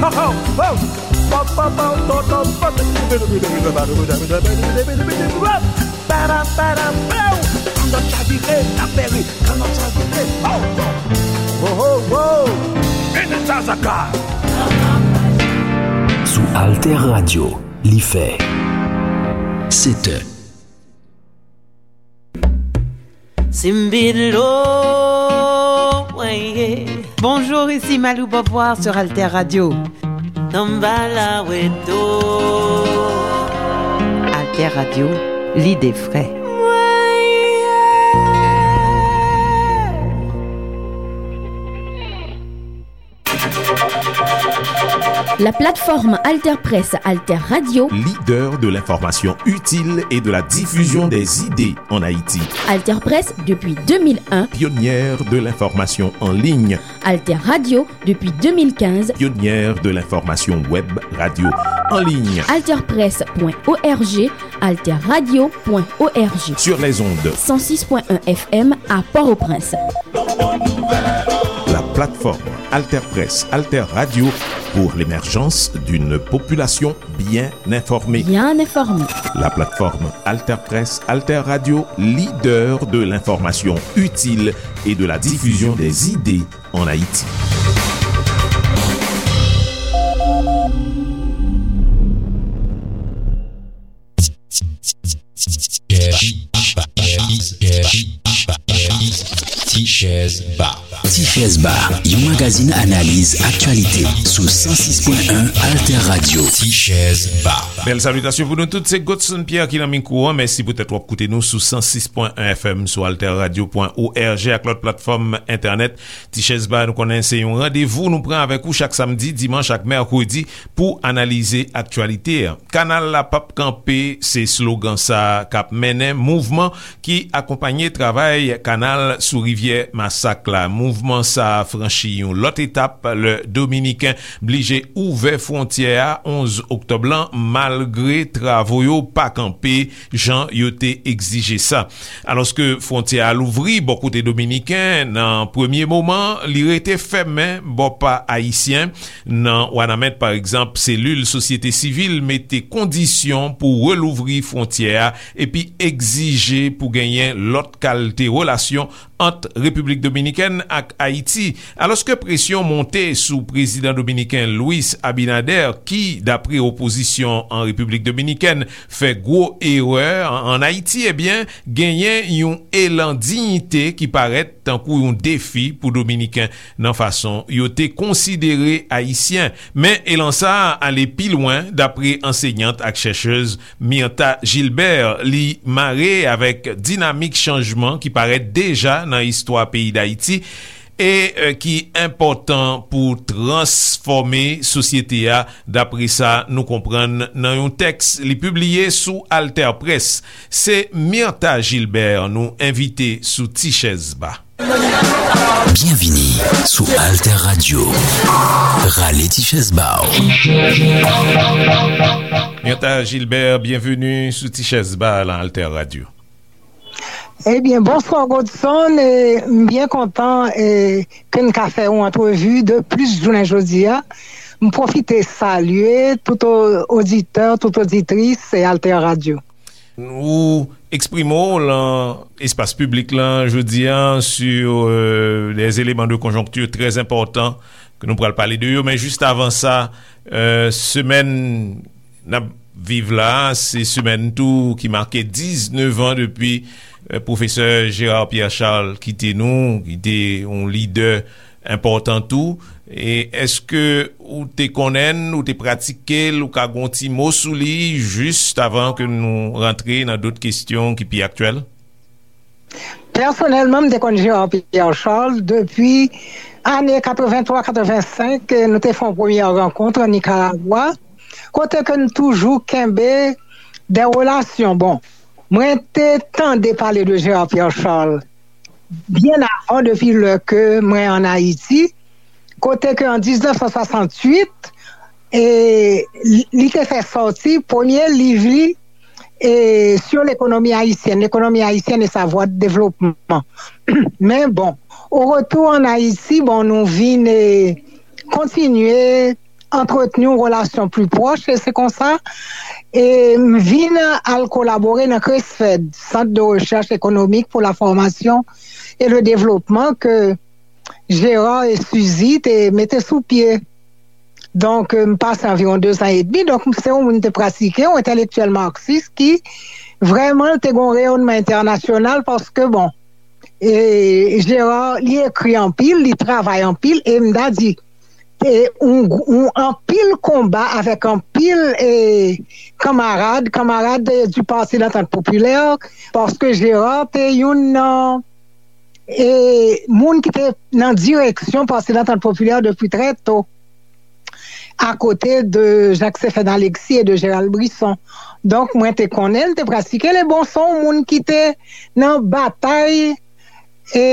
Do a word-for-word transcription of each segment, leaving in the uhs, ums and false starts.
Ho, ho, ho! Pop, pop, pop, pop, pop, pop. Kannòt chavire, n ap bere. Kannòt chavire, ho, ho! Ho, ho, ho! Eneta Zaka! Sou Alter Radio, li fè sèt è. Simbidlo, ouais, yeah. Bonjour, ici Malou Beauvoir sur Alter Radio. Tamba la weto. Alter Radio, lide fre. La plateforme Alter Presse, Alter Radio. Leader de l'information utile et de la diffusion des idées en Haïti. Alter Presse depuis deux mille un. Pionnière de l'information en ligne. Alter Radio depuis deux mille quinze. Pionnière de l'information web radio en ligne. Alter Presse point O R G, Alter Radio point O R G. Sur les ondes. Cent six point un F M à Port-au-Prince. La plateforme Alter Presse, Alter Radio pour l'émergence d'une population bien informée. Bien informée. La plateforme Alter Presse, Alter Radio, leader de l'information utile et de la diffusion des idées en Haïti. Ti Chèz Ba. Ti Chèz Ba, yon magazin analiz aktyalite sou san sis pwen en Alter Radio. Ti Chèz Ba. Bèl salitasyon pou nou tout, se Godson Pierre ki nan mikwo an. Mèsi poutèt w ap koute nou sou san sis pwen en F M, sou alter radio pwen O R G ak lòt platfòm entènèt. Ti Chèz Ba, nou konnen se yon randevou nou pran avèk ou chak samdi, dimanch ak mèkredi pou analize aktyalite an. Kanal la p ap kanpe, se slogan sa k ap mennen mouvman ki akonpanye travay kanal sou rivyè Masak la. Mouvman sa a franchi yon lòt etap lè Dominiken blije ouvè fwontyè a onz oktòb lan, malgre travo yo pa kanpe jan yo te egzije sa. Alòske fwontyè a louvri bò kote dominiken, nan premye moman, li rete fèmen bò pa ayisyen. Nan Wanament, pa egzanp, selil sosyete sivil mete kondisyon pou relouvri fwontyè a epi egzije pou genyen lòt kalte relasyon ant Repiblik Dominikèn ak Ayiti. Alòske presyon monte sou prezidan dominiken Luis Abinader, ki, dapre opozisyon an Repiblik Dominikèn, fè gwo erè an, an Ayiti, ebyen, genyen yon elan diyite ki parèt tankou yon defi pou Dominiken nan fason yo te konsidere Ayisyen. Men elan sa a ale pi lwen, dapre ansenyant ak chèchèz Myrtha Gilbert. Li mare avèk dinamik chanjman ki parèt deja nan istwa peyi Dayiti e, e, ki enpòtan pou transfòme sosyete a, dapre sa nou konprann nan yon tèks li pibliye sou Alter Press. Se Myrtha Gilbert nou envite sou Ti Chèz Ba. Byenvini sou Alter Radio. Rale ti chèz ba w. Myrtha Gilbert, byenveni sou Ti Chèz Ba nan Alter Radio. Ebyen, bonswa Godson, e, m byen kontan, e, ke n ka fè yon antrevi de plis jounen jodi a. M pwofite salye tout o-, oditè, tout oditris, e, Alter Radio. Ou eksprime w lan espas piblik lan jodi a sur, euh, des éléments de conjoncture très importants ke nou pral pale de yo, men jis avan sa, euh, semèn n ap viv la, se semèn tou ki make diznèf an depi, euh, pwofesè Gérard Pierre Charles kite nou, ki te yon lidè enpòtan tou. E èske ou te konnen l, ou te pratike l, ou ka gen yon ti mo sou li, jis avan ke nou rantre nan dòt kesyon ki pi aktyèl? Pèsonèlman, m te konn Gérard Pierre Charles depi ane katrevenntwa, katrevensenk, nou te fè yon premyè rankont an Nikaragwa, kote ke n toujou kenbe de relasyon. Bon, mwen te tande pale de Gérard Pierre Charles byen avan, depi lè ke mwen ann Ayiti, kote ke an diznèf san swasantuit, e, li, li te fè sòti premye liv li, e, sur l'économie haïtienne, l'économie haïtienne et sa voie de développement. Men bon, au retour en Haïti, bon, nou vin, e, kontinye antretni yon relasyon pli pwòch, e se konsa e m vin al kolabore nan CRESFED, Centre de Recherche Économique pour la Formation et le Développement, ke Gérard e Suzy te mete sou pye. Donk, m pase anviwon dezan edmi. Donk, se yon moun te pratike, yon entèlektyèl maksis ki vrèman te gen yon reyònman entènasyonal paske, bon, e Gérard, li ekri anpil, li travay anpil, e m ta di, e yon, yon anpil konba avèk anpil e kanmarad, kanmarad e, du Parti d'Entente Populaire, paske Gérard te youn nan e moun ki te nan direksyon Parti d'Entente Populaire depi trè to, akote de Jacques Stéphane Alexis e de Gérald Brisson. Donk, mwen te konnen l, te pratike l, e bon, se yon moun ki te nan batay e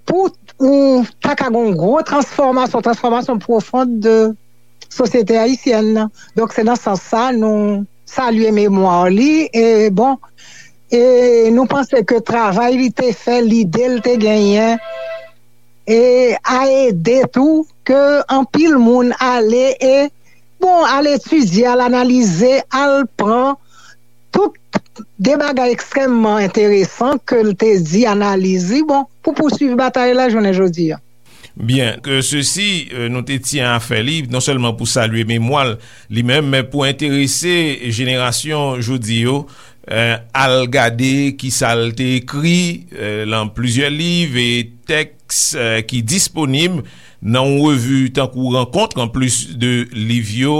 pou ou ta ka gen yon gwo transfòmasyon, transfòmasyon pwofon de sosyete ayisyèn nan. Donk, se nan sans sa nou salye memwa li. E bon, e nou panse ke travay li te fè, lide l te genyen, e a ede tou ke anpil moun ale e, bon, al etidye, al analize, al pran tout de bagay ekstrèmman enteresan ke l te di, analiz li, bon, pou pouswiv batay la jounen jodi a. Byen, ke sesi, euh, nou te tyen a fè li, non sèlman pou salye memwa l li menm, men pou enterese jenerasyon jodi yo, euh, al gade ki sa l te ekri, euh, lan plizyè liv e tèks, euh, ki disponib nan yon revi tankou Rankont, anplis de liv yo,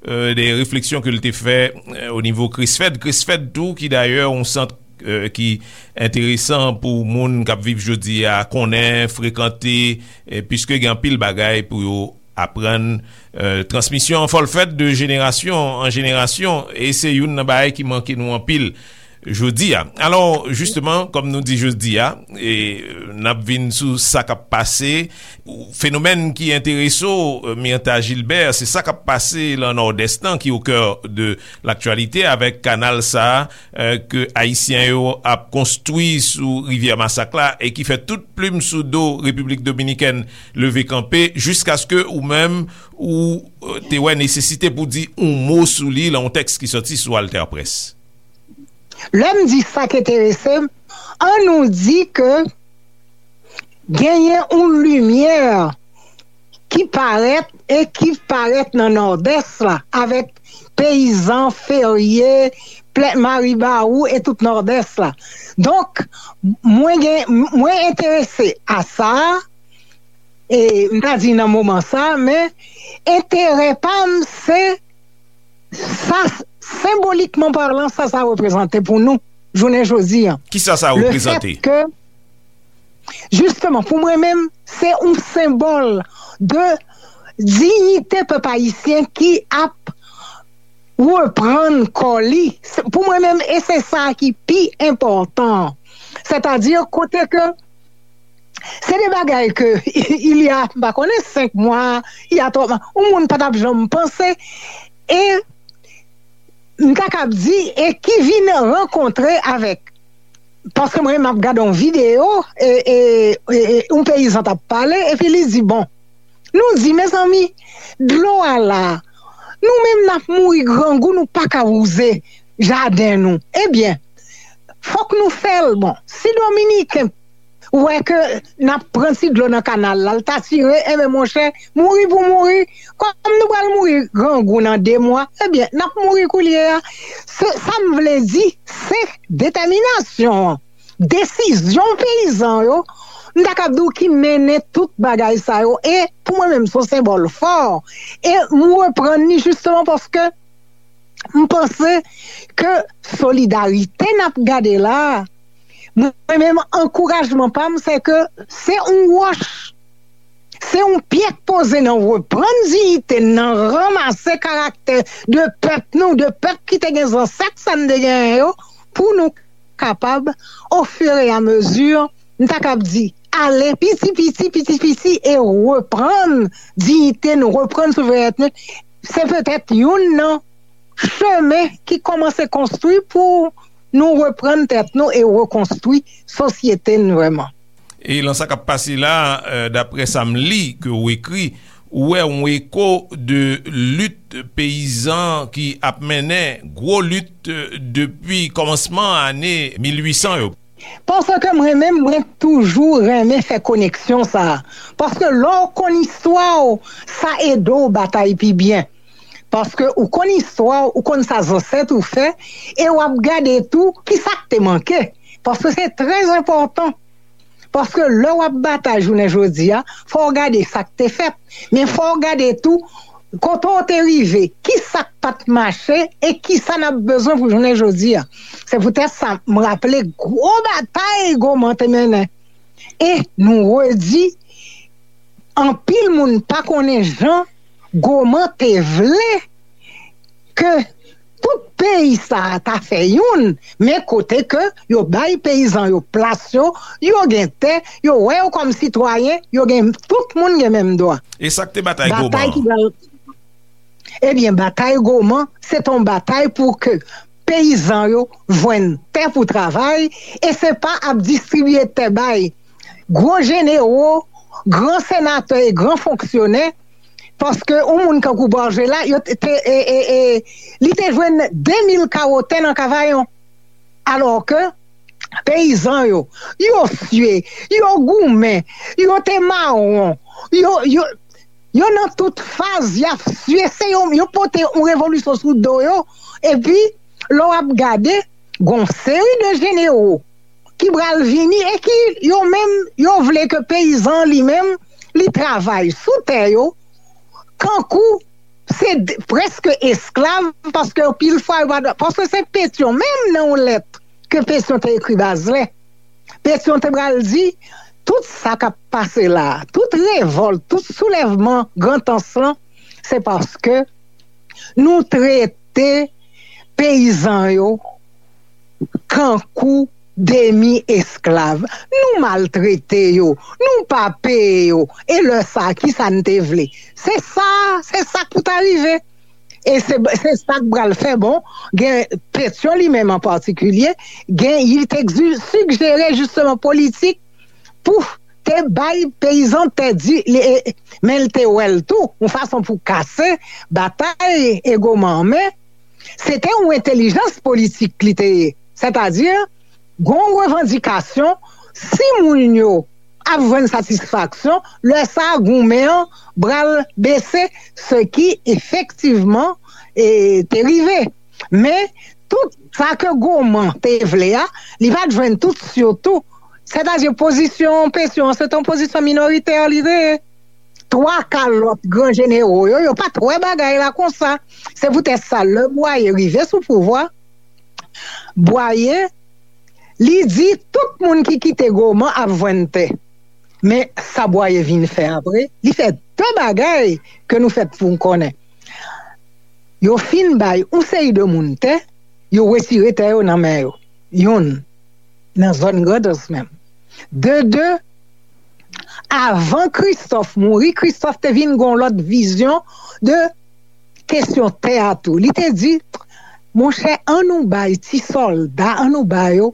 euh, de refleksyon ke l te fè, euh, o nivo CRESFED. CRESFED tou, ki dayè yon sant, euh, ki enteresan pou moun k ap viv jodi a, konnen, frekante, e piske gen anpil bagay pou yo aprann, euh, transmisyon an fò l fèt de jenerasyon an jenerasyon, e se youn nan bagay ki manke nou anpil jodi a. Alò, jisteman, kòm nou di jodi a, e, n ap vin sou sa k ap pase, fenomèn ki enterese w, Myrtha Gilbert, se sa k ap pase lan Nòdès lan, ki au cœur de l'actualité, avèk kanal sa a, euh, ke Ayisyen yo ap konstwi sou rivyè Masak la, e ki fè tout plim sou do Repiblik Dominikèn leve kanpe, jiskaske ou menm, ou, euh, te wè nesesite pou di yon mo sou li lan yon tèks ki sòti sou AlterPresse. Lè m di sa k enterese m, an nou di ke genyen yon limyè ki parèt e ki parèt nan Nòdès la, avèk peyizan, ferye, plè, Maribawou e tout Nòdès la. Donk, mwen gen, mwen enterese a sa, e m ta di nan moman sa, men enterè pa m se sa, senbolikman palan, sa sa reprezante pou nou jounen jodi a. Kisa sa reprezante? Le fèt ke, jisteman, pou mwen menm, se yon senbòl de diyite pèp ayisyen ki ap reprann kò li. Se, pou mwen menm, e se sa ki pi enpòtan. Sètadi, kote ke se de bagay ke, il y a, m pa konnen, senk mwa, il y a twa mwa, yon moun pa t ap janm panse, e m ta kab di, e ki vin rankontre avèk, paske mwen, m ap gade yon videyo, e, e, e, e, yon peyizan t ap pale, epi li di, bon, nou di, mezanmi, dlo a la, nou menm n ap mouri grangou, nou pa ka wouze jaden nou. Ebyen, fòk nou fè l. Bon, si Dominiken wè ke n ap pran ti dlo nan kanal la, l ta tire, enben, monchè, mouri pou mouri, kòm nou pral mouri grangou nan de mwa, ebyen, n ap mouri koulye a. Se, sa m vle di, se detèminasyon an, desizyon peyizan yo, m ta kab di w ki mennen tout bagay sa yo. E pou mwen menm, se yon senbòl fò. E m reprann li jisteman paske m panse ke solidarite n ap gade la a, mwen menm, ankourajman pa m, se ke se yon wòch, se yon pyè k poze nan reprann diyite n, nan ranmase karaktè de pèp nou, de pèp ki te gen zansèt sa n te genyen yo, pou nou kapab, ofiramezi, m ta kab di, ale piti piti, piti piti, e reprann diyite nou, reprann souverènte nou. Se petèt youn nan chemen ki kòmanse konstwi pou nou reprann tèt nou e rekonstwi sosyete n vrèman. E lan sa k ap pase la, euh, daprè sa m li ke w ekri, Ou wè yon eko de lit peyizan ki ap mennen gwo lit depi kòmansman ane mil uit san yo. Paske mwen menm, mwen toujou renmen fè koneksyon sa a. Paske lè w konn istwa w, sa ede w batay pi byen. Paske ou konn istwa w, ou konn sa zansèt ou fè, e w ap gade tou ki sa k te manke. Paske se trè enpòtan. Paske lè w ap batay jounen jodi a, fò w gade sa k te fèt. Men fò w gade tou kote w te rive, ki sa k pa t mache e ki sa n ap bezwen pou jounen jodi a. Se poutèt sa, m raple gwo batay Goman te mennen. E nou redi, anpil moun pa konnen jan Goman te vle ke tout peyi sa a ta fè youn, men kote ke yo bay peyizan yo plas yo, yo gen tè, yo wè yo kòm sitwayen, yo gen, tout moun gen menm dwa. E sa k te batay Goman? Batay ki pral Ebyen, batay Goman, se t on batay pou ke peyizan yo jwenn tè pou travay, e se pa ap distribiye tè bay gwo jenewo, gran senatè e gran fonksyonè, paske yon moun kankou Borgella, yo te, te, e, e, e, li te jwenn de mil kawo tè nan Kavayon. Alò ke peyizan yo, yo sye, yo goumen, yo te mawon, yo, yo, yo nan tout faz, y ap sye, se yo, yo pote yon revolisyon sou do yo, epi lè w ap gade, gon seri de jenewo ki pral vini e ki yo menm, yo vle ke peyizan li menm, li travay sou tè yo, kankou se d- prèske esklav, paske pil fwa yo pa, paske se Petyon menm nan yon lèt ke Petyon te ekri Bazlè. Petyon te pral di, tout sa k ap pase la, tout revòlt, tout soulèvman Grantans lan, se paske nou trete peyizan yo kankou demi esklav. Nou maltrete yo, nou pa peye yo. E lè sa, ki sa n te vle? Se sa, se sa k pou ta rive. E se, se sa k pral fè, bon, gen Petyon li menm an patikilye, gen, li te egzi- sigjere jisteman politik pou te bay peyizan tè di, li, e, men l te wè l tou, yon fason pou kase batay Goman an, men se te yon entèlijans politik li te ye. Sètadi, gon revandikasyon, si moun yo ap jwenn satisfaksyon, lè sa a goumen an pral bese, se ki efektivman e, te rive. Men, tout sa ke Goman te vle a, li pa t jwenn tout, sitou. Sètadi, pozisyon Petyon an, se te yon pozisyon minoritè li te ye. Twa ka lòt gran jenewo yo, yo pa t wè bagay la konsa. Se poutèt sa, lè Bwaye rive sou pouvwa, Bwaye, li di tout moun ki kite Goman ap jwenn tè. Men sa Bwaye vin fè apre, li fè de bagay ke nou fèt pou n konnen. Yo fin bay yon seri de moun tè, yo retire tè yo nan men yo. Youn, nan zòn Grandans menm. De de, avan Kristòf mouri, Kristòf te vin gen yon lòt vizyon de kesyon tè a tou. Li te di, monchè, an nou bay ti sòlda, an nou ba yo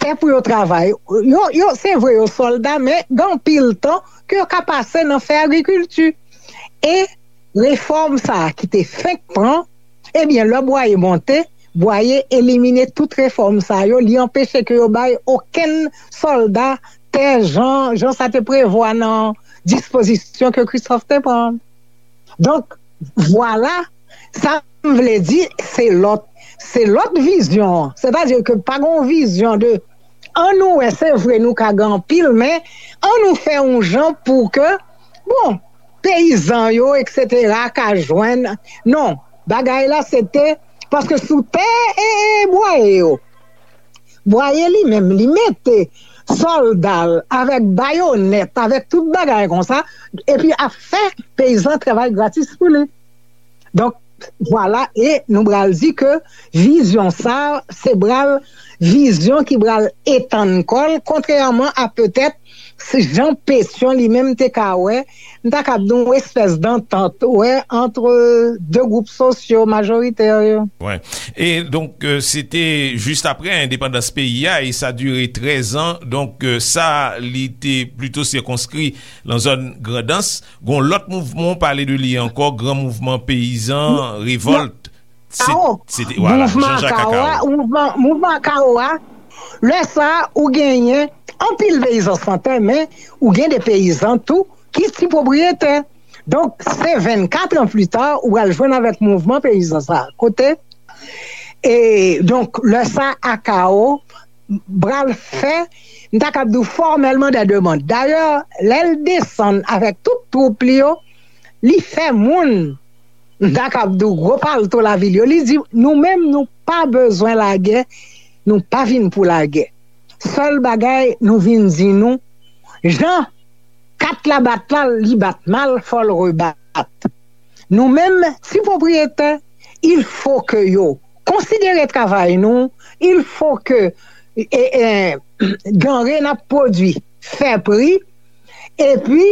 tè pou yo travay. Yo, yo, se vre, yo sòlda, men gen anpil tan ke yo ka pase nan fè agrikilti. E refòm sa a ki te fenk pran, ebyen, lè Bwaye monte, Bwaye elimine tout refòm sa yo, li anpeche ke yo bay okenn sòlda tè jan, jan sa te prevwa nan dispozisyon ke Kristòf te pran. Donk, vwala, sa m vle di, se lòt, se lòt vizyon an. Sètadi ke pa gen yon vizyon de, an nou wè, se vre, nou ka gen anpil, men an nou fè yon jan pou ke, bon, peyizan yo, etsetera, ka jwenn. Non, bagay la, se te, paske sou tè e, e Bwaye yo, Bwaye li menm, li mete sòlda l avèk bayonèt, avèk tout bagay konsa, epi ap fè peyizan travay gratis pou li. Donk, vwala, e nou pral di ke vizyon sa, se pral vizyon ki pral etann kò l, kontrèman a petèt jan Pétion li menm te ka wè, m ta kab di yon espès dantant, wè, ant de gwoup sosyo majoritè yo. Wi. E donk, se te jis apre endepandans peyi a, e sa dire trèz an. Donk, sa, li te plito sikonskri nan zòn Grandans. Gon lòt mouvman, w pale de li ankò, gran mouvman peyizan, revòlt. Kawo. Mouvman Kawo a, mouvman Kawo a, lè sa, ou genyen anpil peyizan san tè, men ou gen de peyizan tou ki ti pwopriyetè. Donk, se vennkat an pli ta, ou pral jwenn avèk mouvman peyizan sa. Kote? E donk, lè sa, Akao pral fè, m ta kab di w fòmèlman, de demann. Dayè, lè l desann avèk tout twoup li yo, li fè moun, m ta kab di w gwo palto lavil yo, li di, nou menm, nou pa bezwen lagè, nou pa vin pou lagè. Sèl bagay, nou vin di nou, jan kat la bat la, li bat mal, fò l rebat. Nou menm, ti pwopriyetè, il fo ke yo konsidere travay nou, il fo ke e, e, danre n ap pwodui fè pri, epi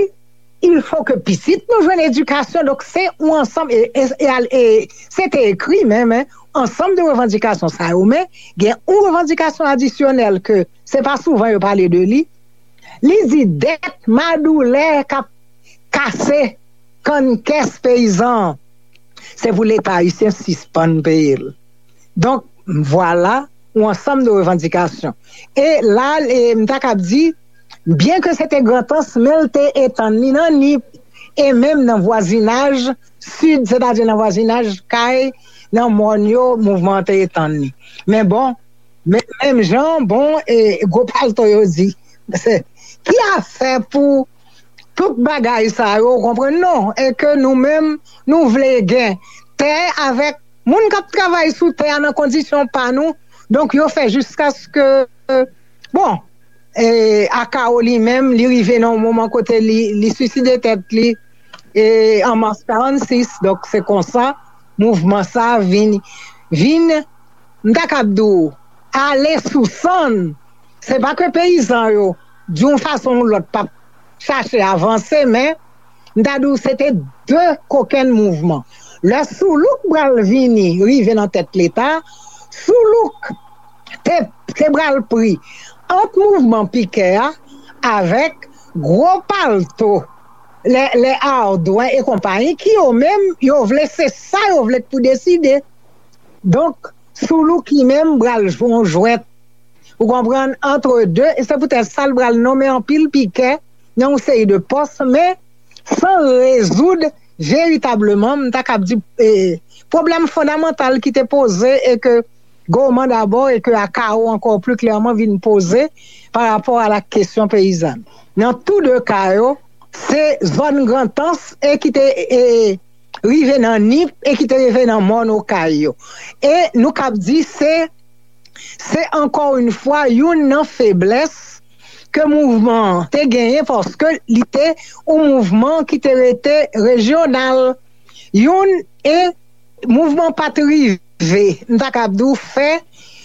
il fo ke pitit nou jwenn edikasyon. Donk, se yon ansanm, e, e, e, e, se te ekri menm, en, ansanm de revandikasyon sa yo, men gen yon revandikasyon adisyonèl ke se pa souvan yo pale de li. Li di dèt madoulè k ap kase kann kès peyizan an, se pou Leta ayisyen sispann peye l. Donk, vwala yon ansanm de revandikasyon. E la, e, m ta kab di, byen ke se te Grantans, men l te etann li nan Nip, e menm nan vwazinaj sid, sètadi nan vwazinaj kay, nan mòn yo, mouvman an te etann li. Men bon, men, menm jan, bon, e, gwo palto yo di, ki afè pou tout bagay sa yo, ou konprann, non? E ke nou menm, nou vle gen tè avèk moun k ap travay sou tè a nan kondisyon pa nou. Donk, yo fè jiskaske, bon, e, Akao li menm, li rive nan yon moman kote li, li siside tèt li, e, an mas karannsis. Donk, se konsa, mouvman sa vin, vin, m ta kab di w, ale sou sann. Se pa ke peyizan yo, di yon fason ou lòt, p ap chache avanse, men m ta di w se te de kokenn mouvman. Lè Soulouk pral vini, rive nan tèt Leta, Soulouk te, te pral pri ant mouvman Pikè a avèk gwo palto, lè, lè Ardwen e konpayi, ki yo menm, yo vle, se sa yo vle pou deside. Donk, Soulouk li menm pral jwe yon jwèt, ou konprann, antre de, e se poutèt sa l pral nonmen anpil Pikè nan yon seri de pòs, men san rezoud veritableman, m ta kab di, e, pwoblèm fondamantal ki te poze e ke Goman dabò e ke Akao ankò pli klèman vin poze pa rapò a la kesyon peyizàn. Nan tou de ka yo, se zòn Grantans e ki te, e, rive nan Nip e ki te rive nan mòn Okay yo. E nou kab di se, se ankò yon fwa youn nan feblès ke mouvman an te genyen paske li te yon mouvman ki te rete rejyonal. Youn e mouvman pa t rive, m ta kab di w, fè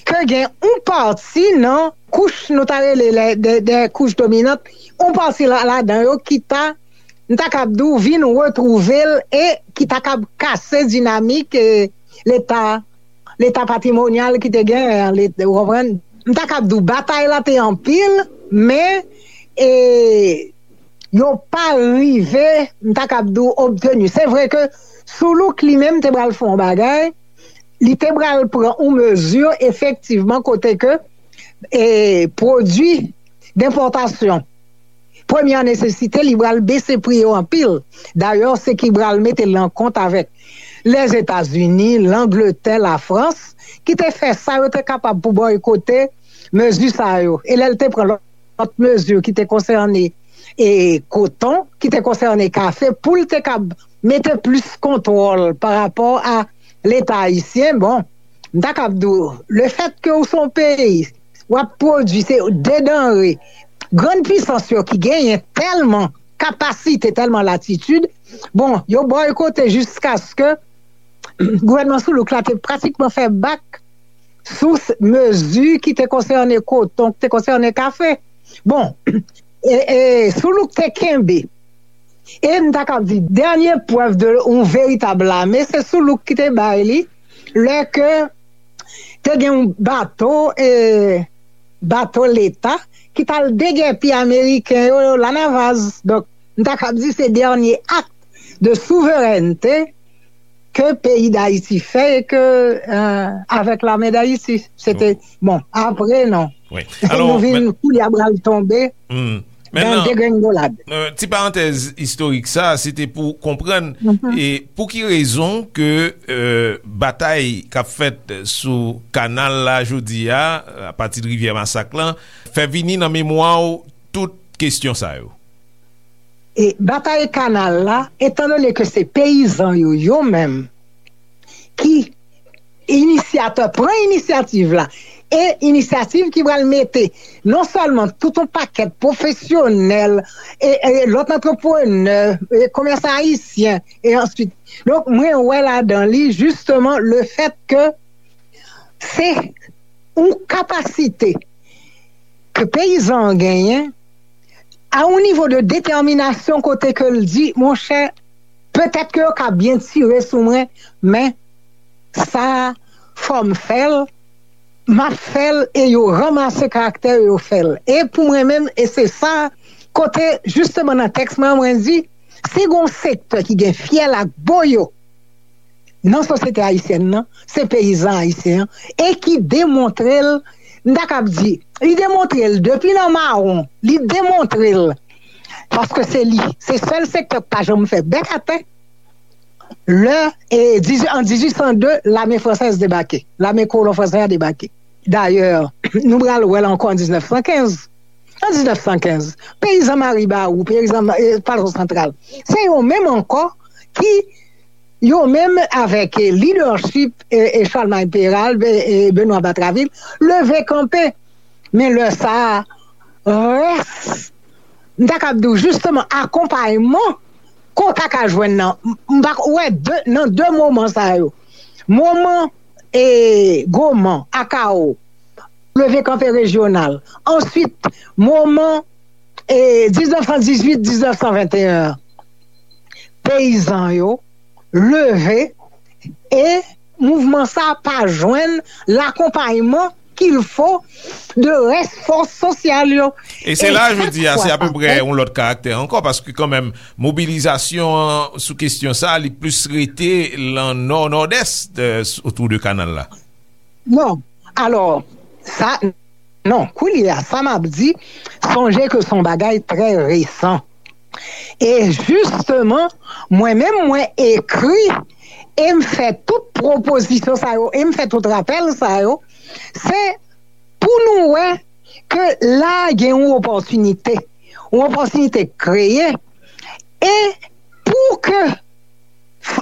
ke gen yon pati nan kouch nou ta rele lè, de, de kouch dominant, yon pati la, ladan yo ki ta, m ta kab di w, vin retwouve l e ki ta kab kase dinamik e, Leta, Leta patrimonyal ki te genyen an, Leta, ou konprann? M ta kab di w, batay la te anpil, men e, yo pa rive, m ta kab di w, obteni. Se vre ke Soulouk li menm te pral fè yon bagay, li te pral pran yon mezi efektivman kote ke e, pwodui denpòtasyon premyè nesesite, li pral bese pri yo anpil. Dayè, se ki pral mete l nan kont avèk Lèzetazini, Langletè, Lafrans, ki te fè sa yo te kapab pou bòykote mezi sa yo. E lè l te pran lòt mezi ki te konsène e koton, ki te konsène kafe, pou l te kab mete plis kontwòl pa rapò a Leta ayisyen, bon, m ta kab di w, lefètke ou se yon peyi, w ap pwodui, se de danre, grann pisans yo ki genyen tèlman kapasite, tèlman latitid, bon, yo bòykote jiskaske gouvènman Soulouk la te pratikman fè bak sou mezi ki te konsène koton, ki te konsène kafe. Bon, e, e, Soulouk te kenbe. E m ta kab di, dènye prèv de yon veritab lame, se Soulouk ki te bay li, lè ke te gen yon bato, e, bato leta, ki t al degèpi Ameriken yo, yo Lanavaz. Donk, m ta kab di se dènye ak de souverènte ke peyi Dayiti fè e ke, e, avèk lame Dayiti. Se te, bon, apre non. Wi. Nou vin koulye a bral tonbe nan degrengolad. Ti parantèz istorik sa, se te pou konprann e pou ki rezon ke, e, batay k ap fèt sou kanal la jodi a, apati de Rivyè Masak lan, fè vini nan memwa w tout kesyon sa yo. E batay kanal la, etandone ke se peyizan yo, yo menm, ki inisyatè, pran inisyativ la, e inisyativ ki pral mete non sèlman tout yon pakèt pwofesyonèl, e, e lòt antreprenè, e komèsan ayisyen, e answit. Donk, mwen wè ladan li, jisteman, le fèt ke se yon kapasite ke peyizan an genyen, a yon nivo de detèminasyon kote ke l di, monchè, petèt ke yo ka byen tire sou mwen, men sa a, fò m fè l, m ap fè l, e yo ranmase karaktè yo, yo fè l. E pou mwen menm, e se sa, kote, jisteman, nan tèks mwen, mwen di, si gen yon sektè ki gen fyèl ak boyo nan sosyete ayisyèn nan, se peyizan ayisyen an, e ki demontre l, m ta kab di, li demontre l depi nan mawon, li demontre l, paske se li, se sèl sektè k pa janm fè bèk atè. Lè, e, dizuit, an dizuit san de, lame fransèz debake, lame kolon fransè a debake. Dayè, nou pral wè l ankò an diznèf san kenz. An diznèf san kenz, peyizan Maribawou, peyizan, e, Plato Santral, se yo menm ankò ki, yo menm avèk, e, lidèchip, e, e Charlemagne Péralte, e, e Benoît Batraville, leve kanpe. Men lè sa a, rès, m ta kab di w, jisteman, akonpayman ke w ta ka jwenn nan, m, m pa wè de, nan de moman sa yo. Moman, e, Goman, Akao, leve kanpe rejyonal. Answit, moman, e, diznèf san dizuit, diznèf san venteyen an, peyizan yo leve e mouvman sa pa jwenn lakonpayman qu'il faut de rès fòs sosyal yo. E se la, jodi a, se apeprè yon lòt karaktè ankò, paske kanmenm, mobilizasyon an sou kesyon sa, li plis rete lan nò, nòdès, e, otou de kanal la. Non. Alò, sa, non, koulye a, sa m ap di, sonje ke se yon bagay trè resan. E jisteman, mwen menm, mwen ekri e m fè tout pwopozisyon sa yo, e m fè tout rapèl sa yo, se pou nou wè ke la gen yon opòtinite, yon opòtinite kreye, e pou ke f-,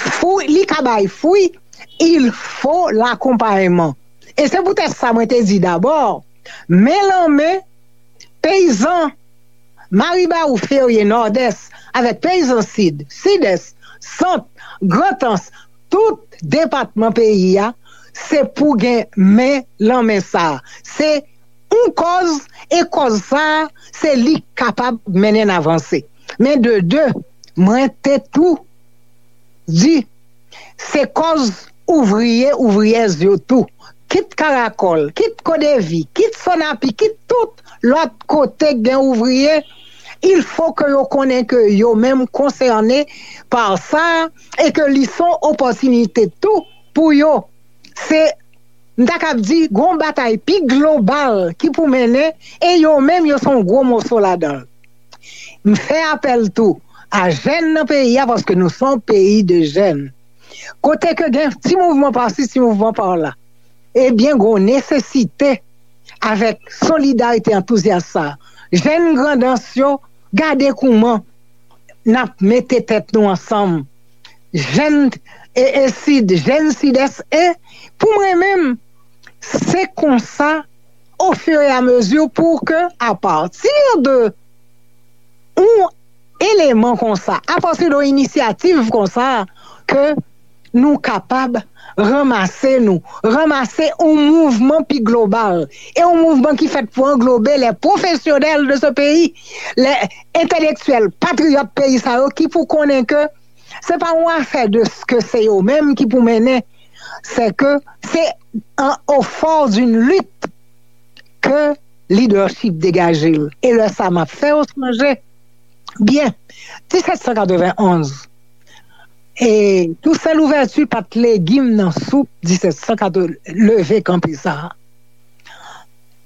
fwi, li ka bay fwi, il faut l'accompagnement. E se poutèt sa mwen te di dabò, men lan men, peyizan Maribawou, Ferye, Nòdès, avèk peyizan Sid, Sidès, Sant, Grantans, tout depatman peyi a, se pou gen men lan men sa a. Se yon kòz, e kòz sa a, se li k kapab mennen n avanse. Men de de, mwen te tou di, se kòz ouvriye, ouvriyèz yo tou. Kit Karakòl, kit Kodevi, kit Sonapi, kit tout lòt kote k gen ouvriye, il faut que yo konnen ke yo menm konsène pa sa, e ke li se yon opòtinite tou pou yo. Se, m ta kab di, gon batay pi global ki pou mennen, e yo menm yo se yon gwo moso ladan l. M fè apèl tou a jèn nan peyi a, paske nou se yon peyi de jèn. Kote ke gen ti mouvman pasi, ti mouvman pa la, ebyen, gon nesesite avèk solidarite antouzyas sa. Jèn Grandans yo, gade kouman n ap mete tèt nou ansanm. Jèn e, e Sid, jèn Sidès, e pou mwen menm, se konsa, au fur et à mesure, pour que, à partir de yon eleman konsa, apati de yon inisyativ konsa, ke nou kapab ranmase nou, ranmase yon mouvman pi global, e yon mouvman ki fèt pou anglobe les professionnels de ce pays, les entèlektyèl, patriyòt peyi sa yo ki pou konnen ke se pa yon afè de ke se yo menm ki pou mennen, se ke se an, au fort d'une lutte ke leadership degaje l. E lè sa m ap fè w sonje, byen, disèt san katrevenn onz, e Toussaint Louverture pa t legim nan soup disèt san katrevenn, leve kanpe sa a.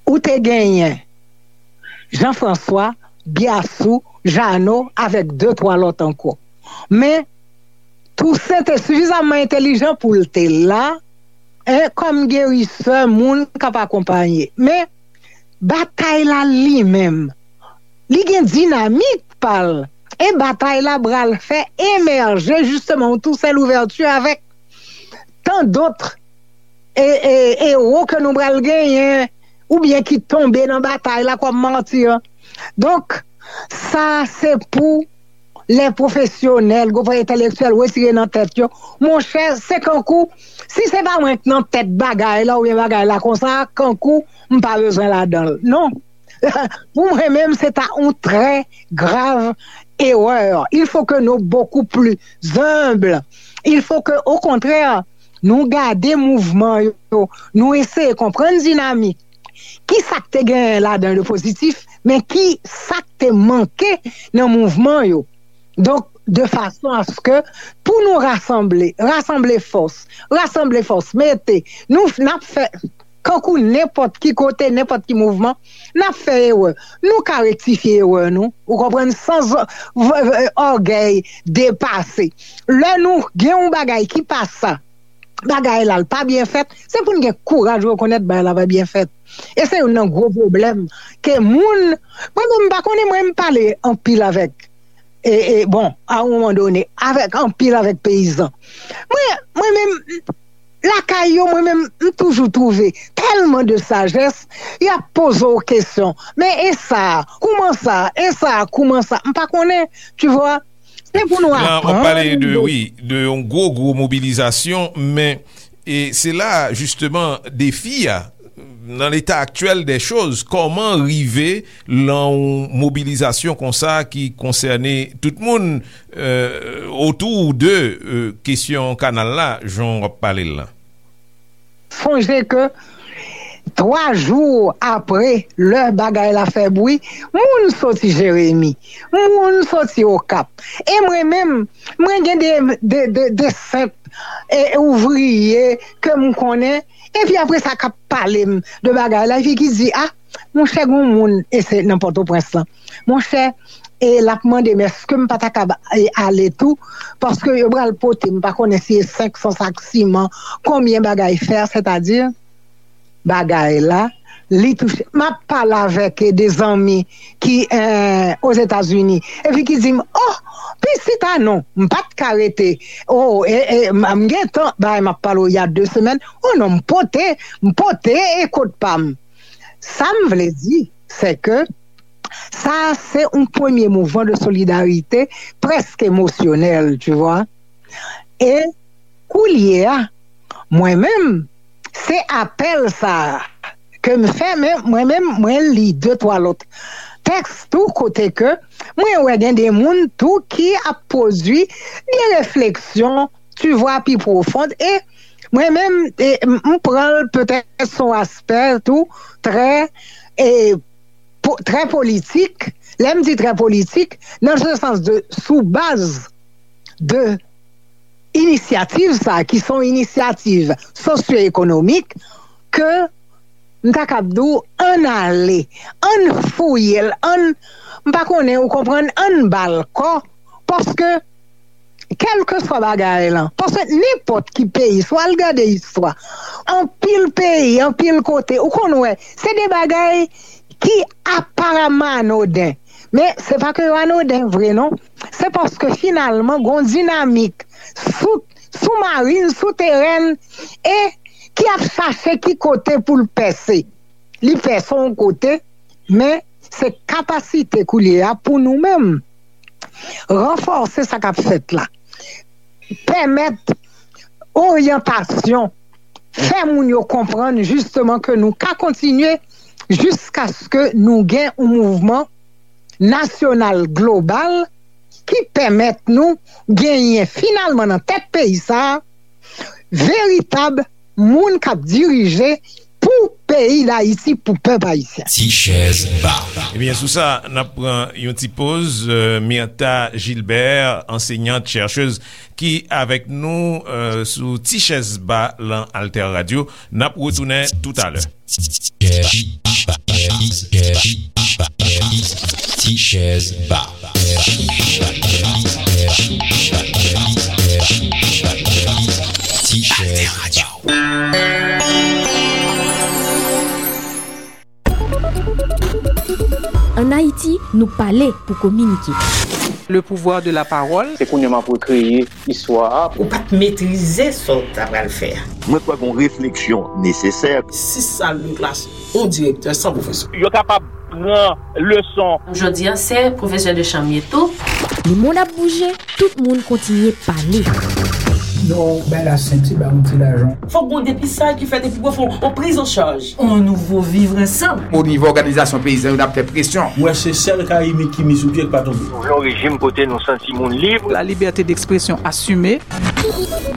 Ou te genyen Jean François, Biassou, Jeannot, avèk de twa lòt ankò. Men Toussaint te sifizaman entelijan pou l te la, en, kòm gerisè, moun k ap akonpaye. Men batay la li menm, li gen dinamik pa l. E batay la pral fè emèje jisteman yon Toussaint Louverture avèk tan dòt e, e, ewo ke nou pral genyen, oubyen ki tonbe nan batay la kòm mati. Donk, sa se pou lè pwofesyonèl, gwo entèlektyèl retire nan tèt yo. Monchè, se kankou, si se pa mwen k nan tèt bagay la oubyen bagay la konsa, kankou m pa bezwen ladan l. Non. Pou mwen menm, se ta yon trè grav erè. Il faut que nous beaucoup plus humbles. Il faut que, au contraire, nou gade mouvman yo, nou eseye konprann dinamik. Ki sa k te genyen ladan de pozitif, men ki sa k te manke nan mouvman yo. Donk, de fason aske pou nou rasanble, rasanble fòs, rasanble fòs, mete, nou, n ap fè, kankou nenpòt ki kote, nenpòt ki mouvman, n ap fè erè. Nou ka rektifye erè nou, ou konprann, san z-, v-, v-, ògèy depase. Lè nou gen yon bagay ki pa sa, bagay la, l pa byen fèt, se pou n gen kouraj rekonèt bagay la pa byen fèt. E se youn nan gwo pwoblèm ke moun, mwen menm, m pa konnen, mwen, m pale anpil avèk, e, e, bon, a yon moman done, avèk anpil, avèk peyizan. Mwen, mwen menm, lakay yo, mwen menm, m toujou twouve tèlman de sajès, y ap poze w kesyon. Men e sa, kouman sa? E sa, kouman sa? M pa konnen, tu vois. Se pou nou aprann. Wi, de yon gwo, gwo mobilizasyon, men e se la, jisteman, defi a, nan leta aktyèl dè choz, kòman rive lan yon mobilizasyon konsa ki konsène tout moun, euh, otou de, euh, kesyon kanal la, jan w ap pale l lan? Sonje ke twa jou apre lè bagay la fè bri, moun soti Jeremi, moun soti Okap. E mwen menm, mwen gen de, de, de, de senp, e, ouvriye ke m konnen, epi apre sa k ap pale m de bagay la, epi ki di, a, monchè, gon moun, e se nan Pòtoprens lan. Monchè, e l ap mande m èske m pa ta kab, e, ale tou, paske yo pral pote, m pa konnen si e senk san sak siman, konbyen bagay fè, sètadi bagay la, li touche. M ap pale avèk, e, de zanmi ki, e, Ozetazini, epi ki di m, o, pitit a non, m pa t ka rete, o, e, e, m, m gen tan, bagay m ap pale w, y a de semèn, o non, m pote, m pote, e, kot pa m. Sa m vle di, se ke sa se yon premye mouvman de solidarite prèske emosyonèl, tu vois. E koulye a, mwen menm, se apèl sa a ke m fè, men mwen menm, mwen li de twa lòt tèks tou, kote ke mwen wè gen de moun tou ki ap pwodui de refleksyon, tu vois, pi pwofon. E mwen menm, e, m, m pran l petèt son aspè tou trè, e, po-, trè politik. Lè m di trè politik, nan se sans de, sou baz de inisyativ sa, ki se yon inisyativ sosyo-ekonomik, ke m ta kab di w, ann ale, ann fouye l, ann, m pa konnen, ou konprann, ann ba l kò, paske kèlkeswa bagay lan, paske nenpòt ki peyi, si w al gade istwa, anpil peyi, anpil kote, ou konn wè, se de bagay ki aparamman anoden. Men se pa ke yo anoden vre, non. Se paske finalman, gon dinamik sou, soumarin, souterèn, e ki ap chache ki kote pou l pèse. Li pèse yon kote, men se kapasite koulye a pou nou menm ranfòse sa k ap fèt la. Pèmèt oryantasyon, fè moun yo konprann jisteman ke nou ka kontinye jiskaske nou gen yon mouvman nasyonal global ki pèmèt nou genyen finalman nan tèt peyi sa a veritab moun k ap dirije pou peyi Dayiti, pou pèp ayisyen. Ti chèz ba. Ebyen, sou sa, n ap pran yon ti poz. Euh, Myrtha Gilbert, ansenyant, chèchèz, ki avèk nou euh, sou Ti chèz ba lan Alter Radio. N ap retounen toutalè. Ti chèz ba. Ti chèz ba. Ann Ayiti, nou pale pou kominike. Le pouvoir de la parole. Se kounye a m ap rekreye istwa a. Ou pa t metrize sa w ta pral fè a. Mwen kwè gen yon refleksyon nesesè. Sis sal de klas, yon direktè san pwofesè. Yo kapab pran leson. Jodi a, se pwofesè de chanm ye tou. Lemonn ap bouje, tout moun kontinye pale. Non, bay la senti, ba yon ti lajan. Fòk gon depistaj ki fèt epi pou fè yon priz an chaj. On nouvo vivre ansanm. O nivo òganizasyon peyizan yo, n ap fè presyon. Mwen se sèl Karibik ki mi sou pye k pa tonbe. Nou vle yon rejim kote nou santi moun lib. La liberté d'expression assumée.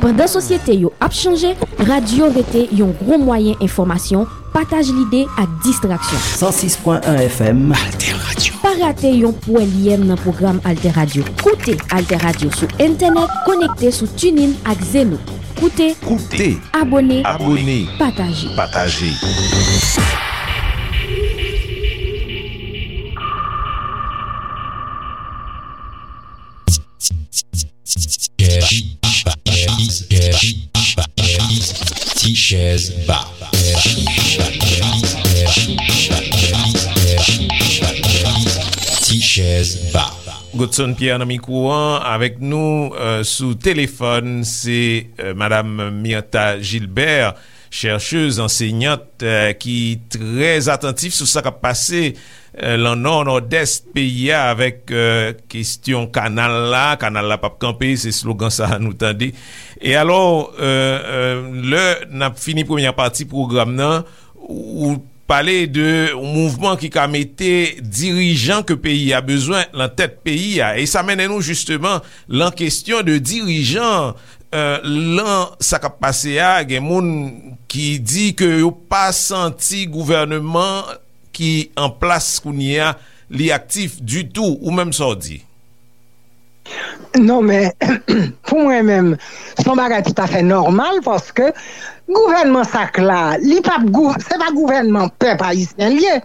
Pandan sosyete yo ap chanje, radyo rete yon gwo mwayen enfòmasyon, pataj lide ak distraksyon. San sis pwen en F M. Alter Radio. Pa rate yon pwèlyèm nan pwogram Alter Radio. Koute Alter Radio sou entènèt, konekte sou TuneIn ak Zeno. Koute, Koute. Abone, Abone. Pataje. Pataje. Ti chèz ba. Ti chèz ba. Godson Pierre nan mikwo an, avèk nou euh, sou telefòn, se euh, Madam Myrtha Gilbert, chèchèz, ansenyant, euh, ki trè atantif sou sa k ap pase euh, lan nò, nòdès peyi a avèk euh, kesyon kanal la. Kanal la p ap kanpe, se slogan sa a nou tande. E alò, euh, euh, lè n ap fini premyè pati pwogram nan, ou pale de yon mouvman ki ka mete dirijan ke peyi a bezwen lan tèt peyi a. E sa mennen nou jisteman lan kesyon de dirijan euh, lan sa k ap pase a, gen moun ki di ke yo pa santi gouvèneman ki an plas kounye a, li aktif ditou, ou menm sa w di? Non, men, pou mwen menm, se yon bagay toutafè nòmal, paske gouvènman sa k la, li p ap gou-, se pa gouvènman pèp ayisyen l ye,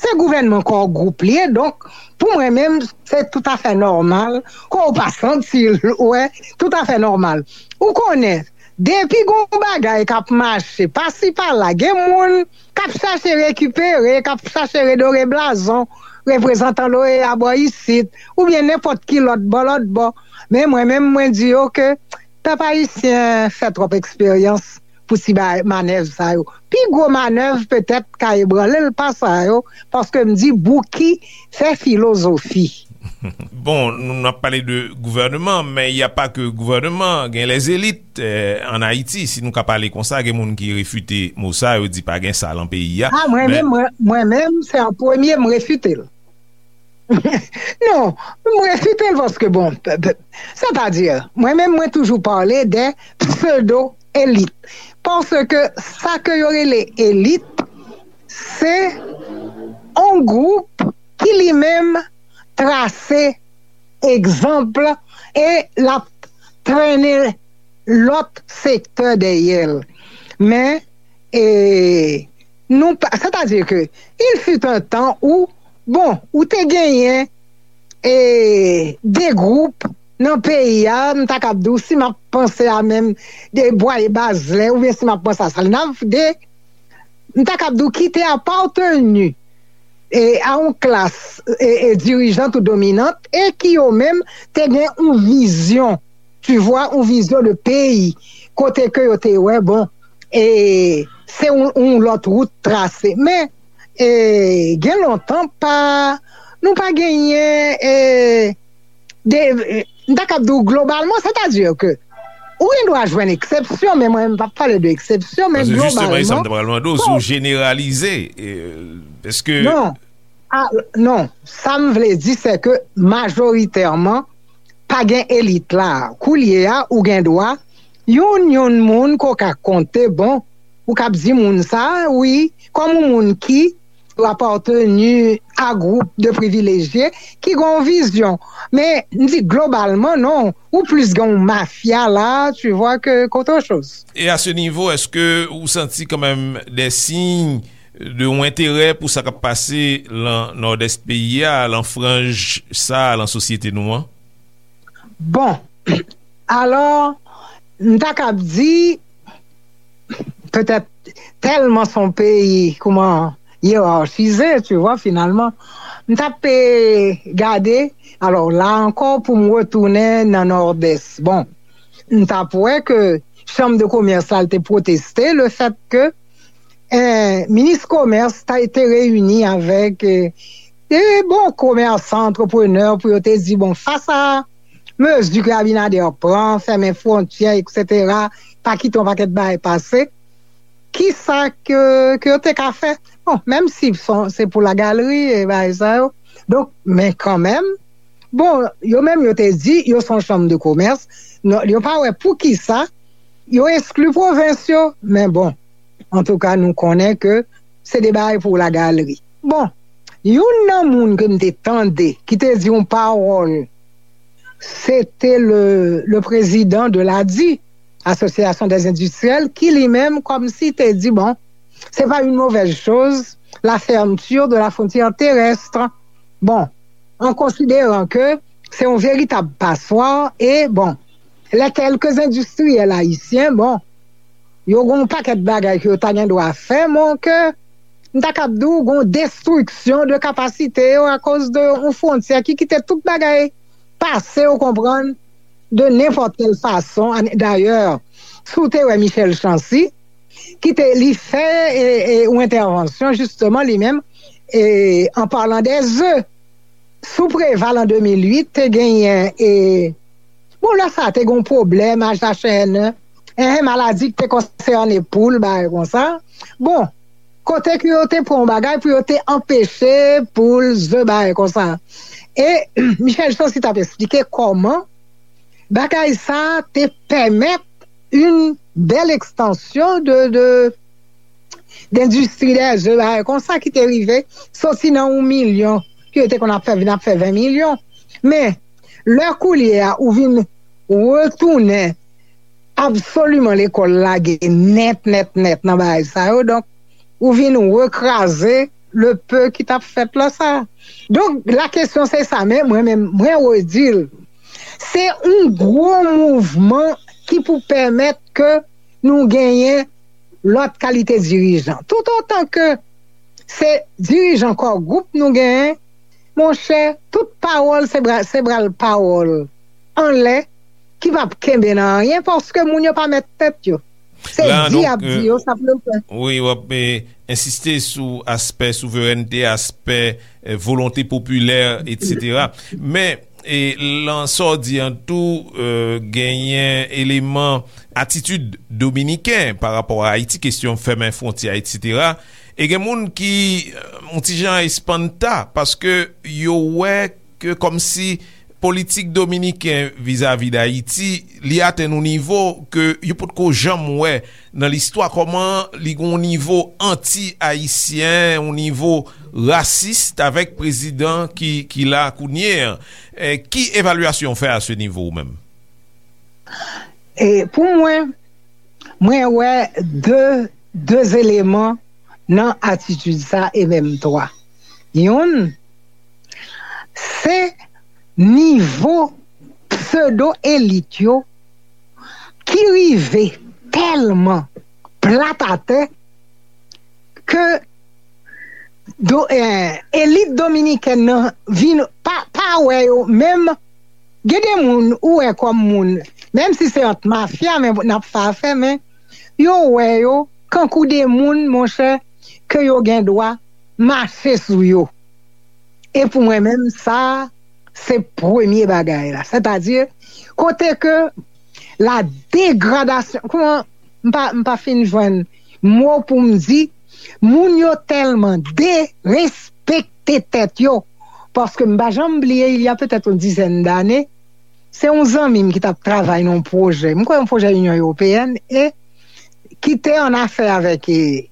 se gouvènman Core Group li ye. Donk, pou mwen menm, se toutafè nòmal, ke w pa santi l, wè, toutafè nòmal. Ou konnen, depi gon bagay k ap mache pasi pala, gen moun k ap chache rekipere, k ap chache redore blazon reprezantan l'OEA bò isit, oubyen nenpòt ki lòt bò, lòt bò. Men mwen menm, mwen di yo ke pèp ayisyen fè twòp eksperyans pou ti bay manèv sa yo. Pi gwo manèv petèt ka ebranle l pa sa yo, paske m di Bouki fè filozofi. Bon, nou n ap pale de gouvèneman, men y a pa ke gouvèneman, gen lèzelit euh, an Ayiti, si nou ka pale konsa, gen moun ki refite mo sa, yo di pa gen sa lan peyi a. Ah, mwen men, menm, mwen, mwen menm, se an premye m refite l. Non, m refite l paske, bon, p- p- sètadi, mwen menm, mwen toujou pale de pseudo elit. Paske sa ke yo rele elit, se yon gwoup ki li menm trase egzanp e l ap trennen lòt sektè dèyè l. Men, e, nou pa, sètadi ke, il fut un temps où, bon, ou te genyen e, de gwoup nan peyi a, m ta kab di w, si m ap panse a menm de Bwaye Bazlè, oubyen si m ap panse a Salinav de, m ta kab di w ki te apateni e, a yon klas e, e, dirijant ou dominant e ki yo menm te gen yon vizyon, tu vois, yon vizyon de peyi, kote ke yo te wè, bon, e, se yon, yon lòt wout trase. Men, e, gen lontan pa, nou pa genyen e, de, e, m ta kab di w globalman, sètadi ke Ou gen dwa jwenn eksepsyon, men mwen, m p ap pale de eksepsyon, men globalman. Paske jisteman, e sa m te pral mande w, si w jeneralize, èske. Non, a, non, sa m vle di, se ke majoritèman, pa gen elit la. Koulye a, ou gen dwa, youn, youn moun ke w ka konte, bon, ou k ap di moun sa, wi, kòm yon moun ki ou apateni a gwoup de privilejye ki gen yon vizyon. Men, m di globalman, non, ou plis gen yon mafya la, tu vois, ke, ke autre chose. E a se nivo, èske ou santi kanmenm de siy de yon enterè pou sa k ap pase lan Nòdès peyi a, lan franj sa, lan sosyete nou an? Bon, alò, m ta kab di, petèt tèlman se yon peyi, kouman, yerachize, tu vois, finalman. M t ap, eh, gade, alò, la ankò, pou m retounen nan Nòdès. Bon, m t ap wè ke Chanm de Komès la, l te pwoteste le fèt ke, eh, minis komès ta te reyini avèk, eh, de bon komèsan, antreprenè, pou yo te di, bon, fas a mezi ke Abinader pran, fèmen fwontyè, etsetera, pa kite yon pakèt bagay pase, kisa ke, ke yo te ka fè? Bon, menm si son, se pou lagalri e bagay sa yo. Donk, men kanmenm, bon, yo menm yo te di, yo se yon chanm de komès, non, yo pa wè poukisa yo eskli pwovens yo, men bon, antouka, nou konnen ke se de bagay pou lagalri. Bon, youn nan moun ke m te tande ki te di yon pawòl, se te le, le président de l'A D I, Association des Industriels, ki li menm kòmsi te di, bon, c'est pas une mauvaise chose, la fermeture de la frontière terrestre. Bon, en considérant que c'est un véritable passoire, et bon, les quelques industriels haïtiens, bon, yo gen yon pakèt bagay ke yo ta gen dwa fè, men ke m ta kab di w gen yon destriksyon de kapasite yo akoz de yon fwontyè ki kite tout bagay pase, ou konprann, de nenpòt kèl fason. Dayè, si w te wè Michel Chancy, ki te, li fè, e, e, yon entèvansyon, jisteman, li menm, e, an palan de ze. Sou Preval an de mil uit, te genyen, e, bon, lè sa a, te gen yon pwoblèm, H H N, en, maladi ki te konsène poul, bagay konsa. Bon, kote ke yo te pran yon bagay pou yo te anpeche poul, ze, bagay konsa. E Michel Chancy t ap esplike kòman bagay sa a te pèmèt yon bèl ekstansyon de, de, dendistri dè ze, bagay konsa ki te rive soti nan yon milyon ke yo te konn ap fè, vin ap fè ven milyon. Men, lè koulye a, ou vin retounen absoliman lekòl lage nèt, nèt, nèt nan bagay sa yo. Donk, ou vin rekraze le peu ki t ap fèt la sa. Donk, la kesyon se sa, men mwen menm, mwen redi l. Se yon gwo mouvman ki pou pèmèt ke nou genyen lòt kalite dirijan. Toutotan ke se dirijan kò gwoup nou genyen, monchè, tout pawòl se bra-, se bral pawòl anlè ki p ap kenbe nan anyen paske moun yo pa mèt tèt yo. Se di y ap di yo, sa pou yo fè. Wi, w ap, eh, ensiste sou aspè souverènte, aspè, eh, volonte popilè, etsetera. Men, e lan sa w di an tou, eh, genyen eleman atitid dominiken pa rapò a Ayiti, kesyon fèmen fwontyè, etsetera. E gen moun ki, eh, yon ti jan espanta paske yo wè ke kòmsi politik dominiken vizavi Dayiti, li atenn yon nivo ke yo potko janm wè nan listwa, kòman li gen yon nivo anti-ayisyen, yon nivo rasis avèk prezidan ki, ki la kounye a. Eh, ki evalyasyon w fè a se nivo ou menm? E pou mwen, mwen wè de, de eleman nan atitid sa, e menm twa. Youn, se nivo pseudo elit yo ki rive tèlman plat atè ke do, eh, elit dominikèn nan vin pa, pa wè yo menm. Gen de moun ou wè kòm moun, menm si se ant mafya, men n ap fè afè, men yo wè yo kankou de moun, monchè, ke yo gen dwa mache sou yo. E pou mwen menm, sa, se premye bagay la. Sètadi, kote ke la degradasyon, kòman, m pa, m pa fin jwenn mo pou m di, moun yo tèlman derespekte tèt yo, paske m pa janm bliye, il y a peut-être une dizaine d'années, se yon zanmi m ki t ap travay nan yon pwojè, m kwè yon pwojè Inyon Ewopeyèn, e ki te an afè avèk, e,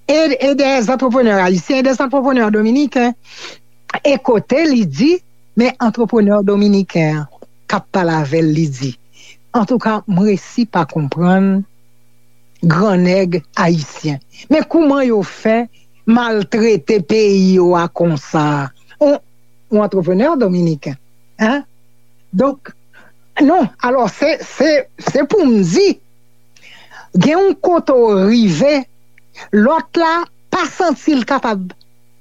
e, e des entrepreneurs haïtiens, e des entrepreneurs dominicains, e kote li di, men entrepreneur dominiken an k ap pale avè l, li di, antouka, m resi pa konprann gran nèg ayisyen. Men kouman yo fè maltrete peyi yo a konsa? On, on entrepreneur dominiken, hein? Donk, non, alò, se, se, se pou m di, gen yon kote w rive, lòt la pa santi l kapab.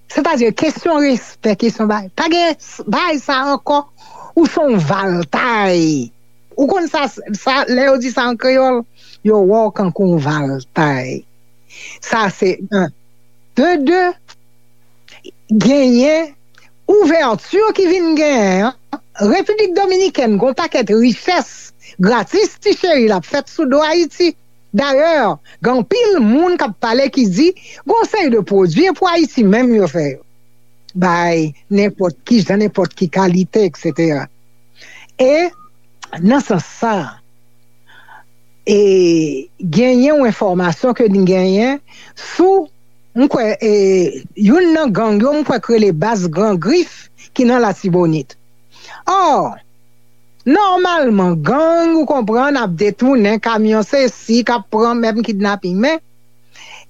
Sètadi, kesyon respè, kesyon bagay. Pa gen s- bagay sa ankò, ou se yon valtay. Ou konn sa, sa, lè yo di sa an kreyòl, yo wè w kankou yon valtay. Sa se un. De de, genyen ouvèti ki vin genyen an. Repiblik Dominikèn gon pakèt richès gratis ti cheri l ap fèt sou do Ayiti. Dayè, gen anpil moun k ap pale ki di gon seri de pwodui e pou Ayiti menm yo fè yo. Bay nenpòt ki jan, nenpòt ki kalite, et cetera. E nan sans sa, e genyen yon enfòmasyon ke n genyen sou, m kwè, e, youn nan gang yo, m kwè k rele Baz Gran Grif ki nan Latibonit. Ò, nòmalman, gang, ou konprann, ap detounen kamyon, se si, k ap pran menm kidnaping, men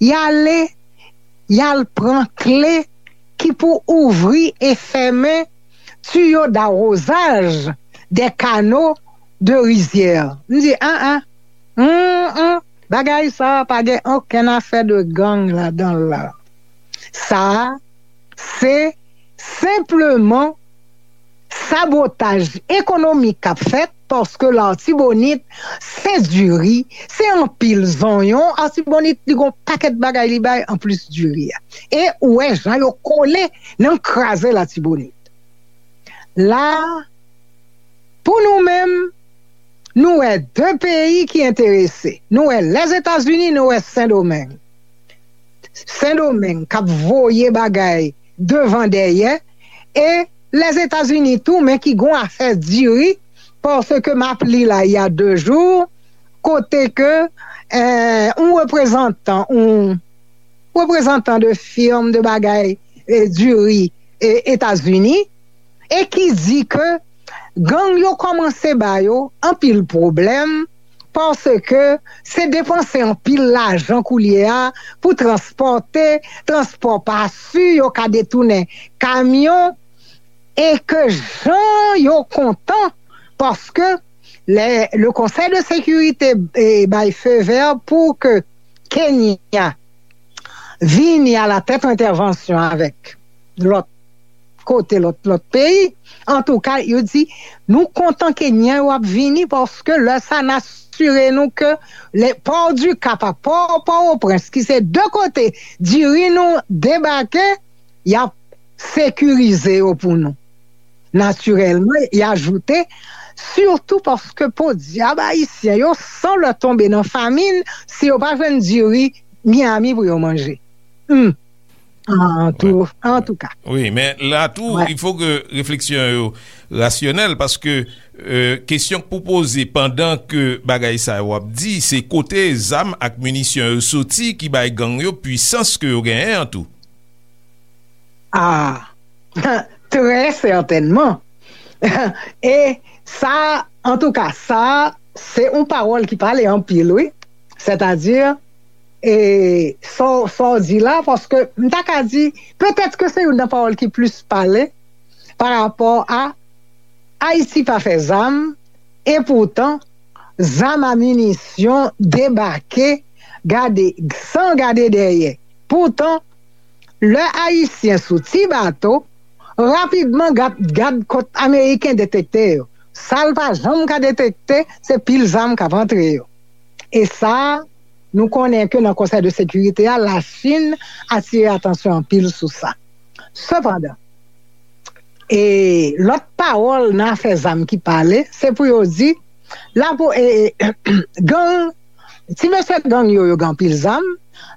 y ale, y al pran kle ki pou ouvri e fèmen tiyo dawozaj de kano de rizyè. M di, an, an, an, an, bagay sa a pa gen okenn afè de gang ladan l la. Sa a, se senpleman sabotaj ekonomik k ap fèt, paske Latibonit, se diri, se anpil zonyon. Latibonit, li gon pakèt bagay li bay anplis diri a. E ou wè jan yo kole nan kraze Latibonit. La, pou nou menm, nou wè de peyi ki enterese. Nou wè Lèzetazini, nou wè Sendomeng. Sendomeng k ap voye bagay devan dèyè, e Lèzetazini tou, men ki gon afè diri, paske m ap li la, il y a deux jours, kote ke, eh, yon reprezantan, yon reprezantan de firm de bagay, eh, diri, eh, Etazini, e ki di ke gang yo kòmanse ba yo anpil pwoblèm, paske se depanse anpil lajan koulye a pou transpòte, transpò pa si, yo ka detounen kamyon, e ke jan yo kontan, paske le, le Conseil de Sécurité, eh, bay feu vert pou ke Kenya vini a la tèt entèvansyon avèk lòt kote, lòt, lòt peyi. Antouka, yo di, nou kontan Kenyan yo ap vini, paske lè sa, n asire nou ke le Port du Cap a Port, Port-au-Prince, ki se de kote diri nou debake, y ap sekirize yo pou nou. Natirèlman, y ajoute, sitou paske podyab ayisyen yo, san lè tonbe nan famin, si yo pa jwenn diri Miami pou yo manje. Hmm. An tou, an tou ka. Wi, men la tou, il faut que refleksyon yo rasyonèl, paske, euh, kesyon k pou poze pandan ke bagay sa yo ap di, se kote zam ak minisyon yo soti ki bay gang yo pwisans ke yo genyen an tou. Ah, très certainement. E sa, an tou ka, sa, se yon pawòl ki pale anpil, wi. Sètadi, e sa w, sa w di la, paske m ta ka di, petèt ke se youn nan pawòl ki plis pale pa rapò a Ayiti pa fè zam, e poutan, zam a minisyon debake, gade, san gade dèyè. Poutan, lè Ayisyen sou ti bato, rapidman gad, gad kot Ameriken detekte yo. Sa l pa janm ka detekte, se pil zam k ap antre yo. E sa, nou konnen ke nan Konsèy de Sekirite a, Lachin atire atansyon anpil sou sa. Sepandan, e lòt pawòl nan afè zam ki pale, se pou yo di, Lapo, e, e, gang, ti mesye gang yo, yo gen anpil zam,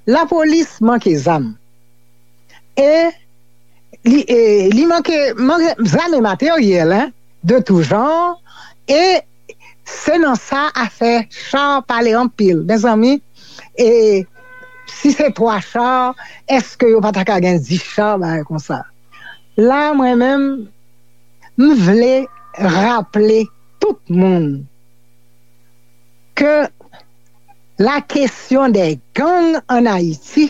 lapolis manke zam. E li, e, li manke, manke zam e materyèl, hein, de tout genre. E se nan sa afè cha pale anpil. Mezanmi, e si se twa cha, èske yo pa ta ka gen dis cha, bagay konsa? La, mwen menm, m vle raple tout moun ke la question des gangs en Haïti,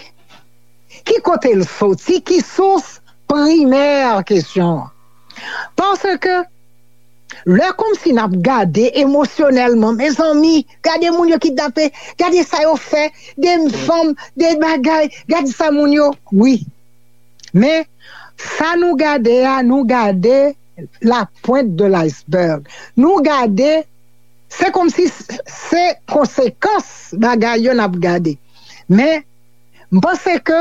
ki kote l soti, ki sous, primè kesyon an. Paske lè kòmsi n ap gade emosyonèlman, mezanmi, gade moun yo kidnape, gade sa yo fè, de fanm, de bagay, gade sa moun yo, wi. Men, sa nou gade a, nou gade la pointe de l'iceberg. Nou gade, se kòmsi s-, se konsekans bagay yo n ap gade. Men, m panse ke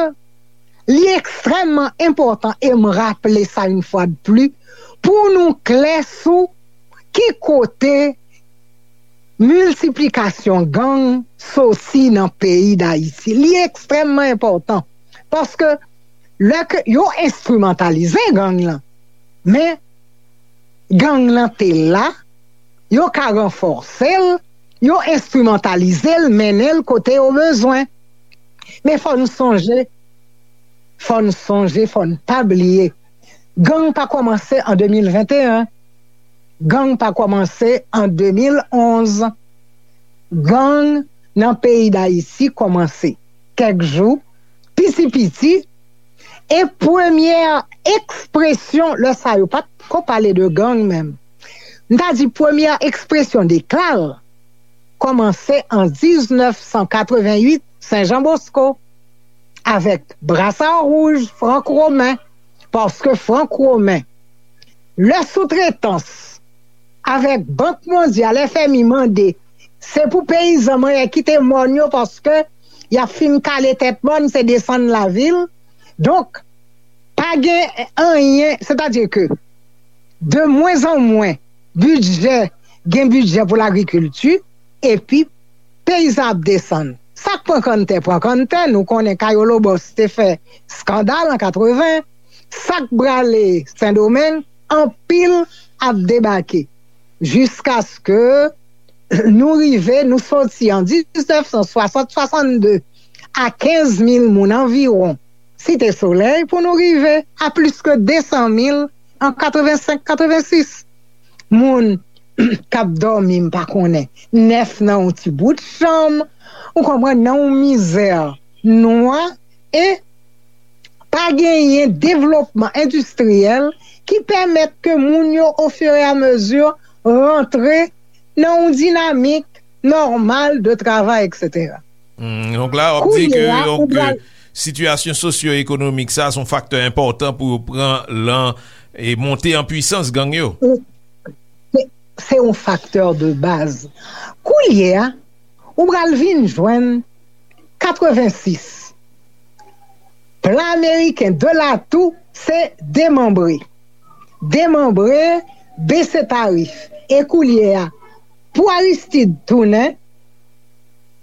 li ekstrèmman enpòtan, e m raple sa yon fwa de pli, pou nou klè sou ki kote miltiplikasyon gang soti nan peyi Dayiti. Li ekstrèmman enpòtan, paske lè ke yo enstrimantalize gang lan, men gang lan te la, yo ka ranfòse l, yo enstrimantalize l, mennen l kote yo bezwen. Men fò n sonje, fò n sonje, fò n pa bliye, gang pa kòmanse an de mil venteyen, gang pa kòmanse an de mil onz. Gang nan peyi Dayiti kòmanse kèk jou, piti piti, e premyè ekspresyon, lè sa yo pa t ko pale de gang menm. M ta di premyè ekspresyon de kla l kòmanse an diznèf san katrevenn uit, Sen Jan Bosko, avèk Brasard Rouge, Frank Romen, paske Frank Romen, lè soutretans avèk Bank Mondyal, F M I mande, se pou peyizan manyen kite mòn yo paske y ap fin kale tèt mòn, se desann lavil. Donk, pa gen anyen, sètadi ke de mwen an mwen, bidjè, gen bidjè pou lagrikilti, epi peyizan ap desann. Sa k pran kanntè, pran kanntè, nou konnen Kayolo Bòs te fè eskandal an katreven, sa k brale Sendomeng, anpil ap debake. Jiskaske nou rive, nou soti an diznèf san swasant, swasannde, a kenz mil moun anviwon Site Solèy pou nou rive a plis ke de san mil an katrevensenk, katrevensis. Moun k ap dòmi, m pa konnen, nèf nan yon ti bout chanm, ou konprann, nan yon mizè nwa, e pa genyen devlopman endistriyèl ki pèmèt ke moun yo, ofiramezi, rantre nan yon dinamik nòmal de travay, etsetera. Hmm, donk la, w ap di ke, Kounye a, donk, ou pral, euh, sitiyasyon sosyo-ekonomik sa, se yon faktè enpòtan pou yo pran lan e monte an pwisans gang yo. Se, se yon faktè de baz. Kounye a, ou pral vin jwenn katrevensis. Plan ameriken de latou, se demanbre. Demanbre, bese tarif. E kounye a, pou Aristide tounen,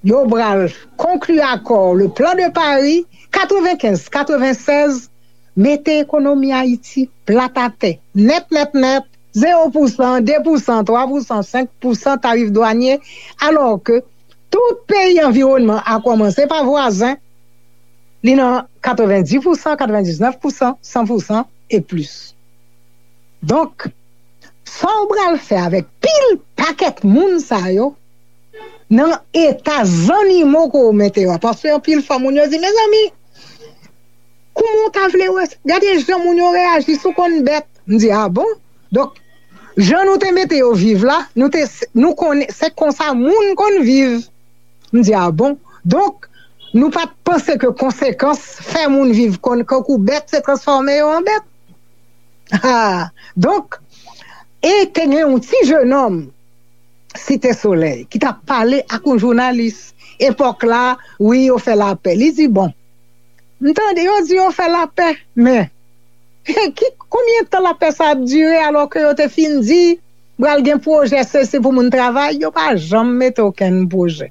yo pral konkli akò, le plan de Paris, katrevenkenz, katrevensèz, mete ekonomi Ayiti plat atè, nèt, nèt, nèt, zewo pousan, de pousan, twa pousan, senk pousan tarif dwanye, alò ke tout peyi anviwònman a kòmanse pa vwazen, li nan katrevendis pousan, katrevendiznèf pousan, san pousan e plis. Donk, sa w pral fè avèk pil pakèt moun sa yo, nan eta zannimo ke w mete yo a? Paske anpil fwa moun yo di, mezanmi, kouman w ta vle wè? Gade jan moun yo reyaji, si w konn bèt. M di, a bon? Donk, jan nou te mete yo viv la, nou te, nou konnen, se konsa moun konn viv. M di, a bon? Donk, nou pa t panse ke konsekans fè moun viv kon, kankou bèt, se transfòme yo an bèt. Ah, donk, e te gen yon ti jenòm Site Solèy ki t ap pale ak yon jounalis. Epòk la, wi, yo fè lapè. Li di, bon, m tande yo di yo fè lapè, men ki, konbyen tan lapè sa ap dire, alò ke yo te fin di pral gen pwojè sesi pou moun travay, yo pa janm mete okenn pwojè.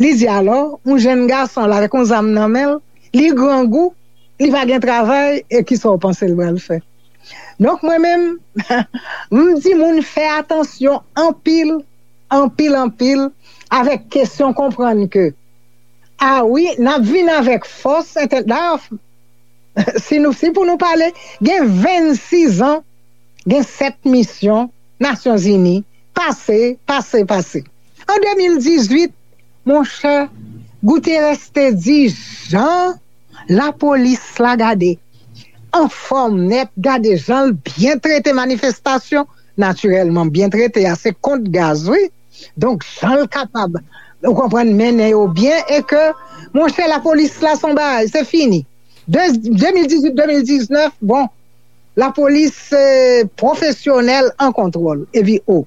Li di alò, yon jenn gason la avèk yon zam nan men l, li grangou, li pa gen travay, e kisa w panse l pral fè? Donk, mwen menm, m di moun fè atansyon anpil, anpil, anpil, avèk kesyon konprann ke, a wi, n ap vin avèk fòs entè-, dayè, si nou, si pou nou pale, gen vennsis an, gen sèt misyon Nasyonzini pase, pase, pase. An de mil dizuit, monchè, Guterres te di jan lapolis la gade anfòm nèt, gade jan l byen trete manifestasyon, natirèlman, byen trete a, se kont gaz, wi. Donk, jan l kapab, ou konprann, mennen yo byen, e ke, monchè, lapolis la se yon bagay, se fini. De, de mil dizuit, de mil diznèf, bon, lapolis, eh, pwofesyonèl an kontwòl. Epi, o.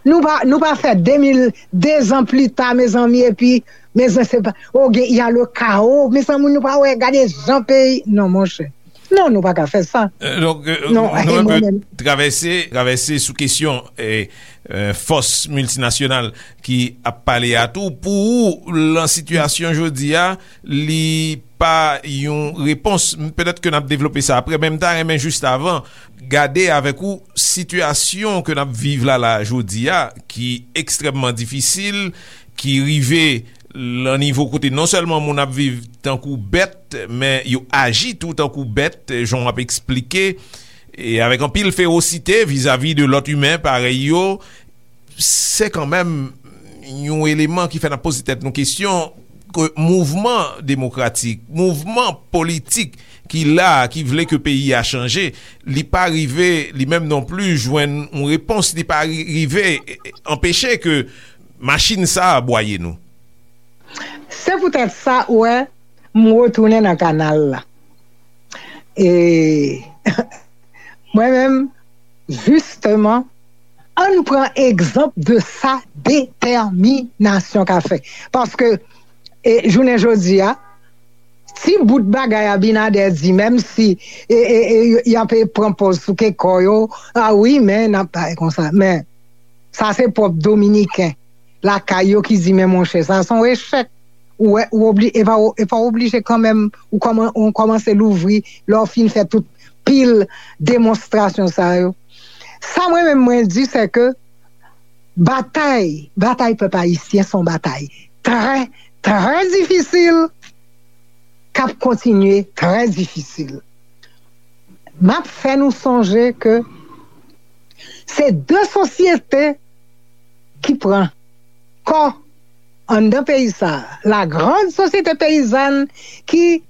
Nou pa, nou pa fè de mil, de zan pli ta, mezanmi, epi, mezanmi, se pa, o, gen, y a le kawo, mezanmi, nou pa wè, gade jan peyi, non, monchè. Non, nou pa ka fè sa. Euh, donk, euh, non, nou, nou e mwen menm. Travèse, travèse sou kesyon, eh, euh, fòs miltinasyonal ki ap pale a tou. Pou ou, lan sitiyasyon jodi a, li pa yon repons. Petèt ke n ap devlope sa apre, men m ta renmen jis avan gade avèk ou sitiyasyon ke n ap viv la, la, jodi a, ki ekstrèmman difisil, ki rive lan nivo kote non sèlman moun ap viv tankou bèt, men yo aji tou tankou bèt, jan w ap eksplike, e avèk anpil fewosite vizavi de lòt imen parèy yo, se kanmenm yon eleman ki fè n ap poze tèt nou kesyon ke mouvman demokratik, mouvman politik ki la, ki vle ke peyi a chanje, li pa rive, li menm non pli, jwenn yon repons, li pa ri-, rive, e, e, anpeche ke machin sa a bwaye nou. Se poutèt sa, ou wè, m retounen nan kanal la. E mwen menm, jisteman, ann pran egzanp de sa detèminasyon ka fè. Paske, e, jounen jodi a, ti bout bagay Abinader di, menm si, e, e, e, y ap pran pòz sou ke kò yo, a wi, men n ap bay konsa. Men, sa se pwòp Dominiken lakay yo ki di, men monchè, sa se yon echèk. Ou wè, ou obli-, e pa, e pa oblije kanmenm, ou kòman-, ou kòmanse louvri, lè w fin fè tout pil demonstrasyon sa yo. Sa mwen menm mwen di, se ke batay, batay pèp ayisyen se yon batay trè, trè difisil, k ap kontinye trè difisil. M ap fè nou sonje ke se de sosyete ki pran kò anndan peyi sa a. La grande société paysanne ki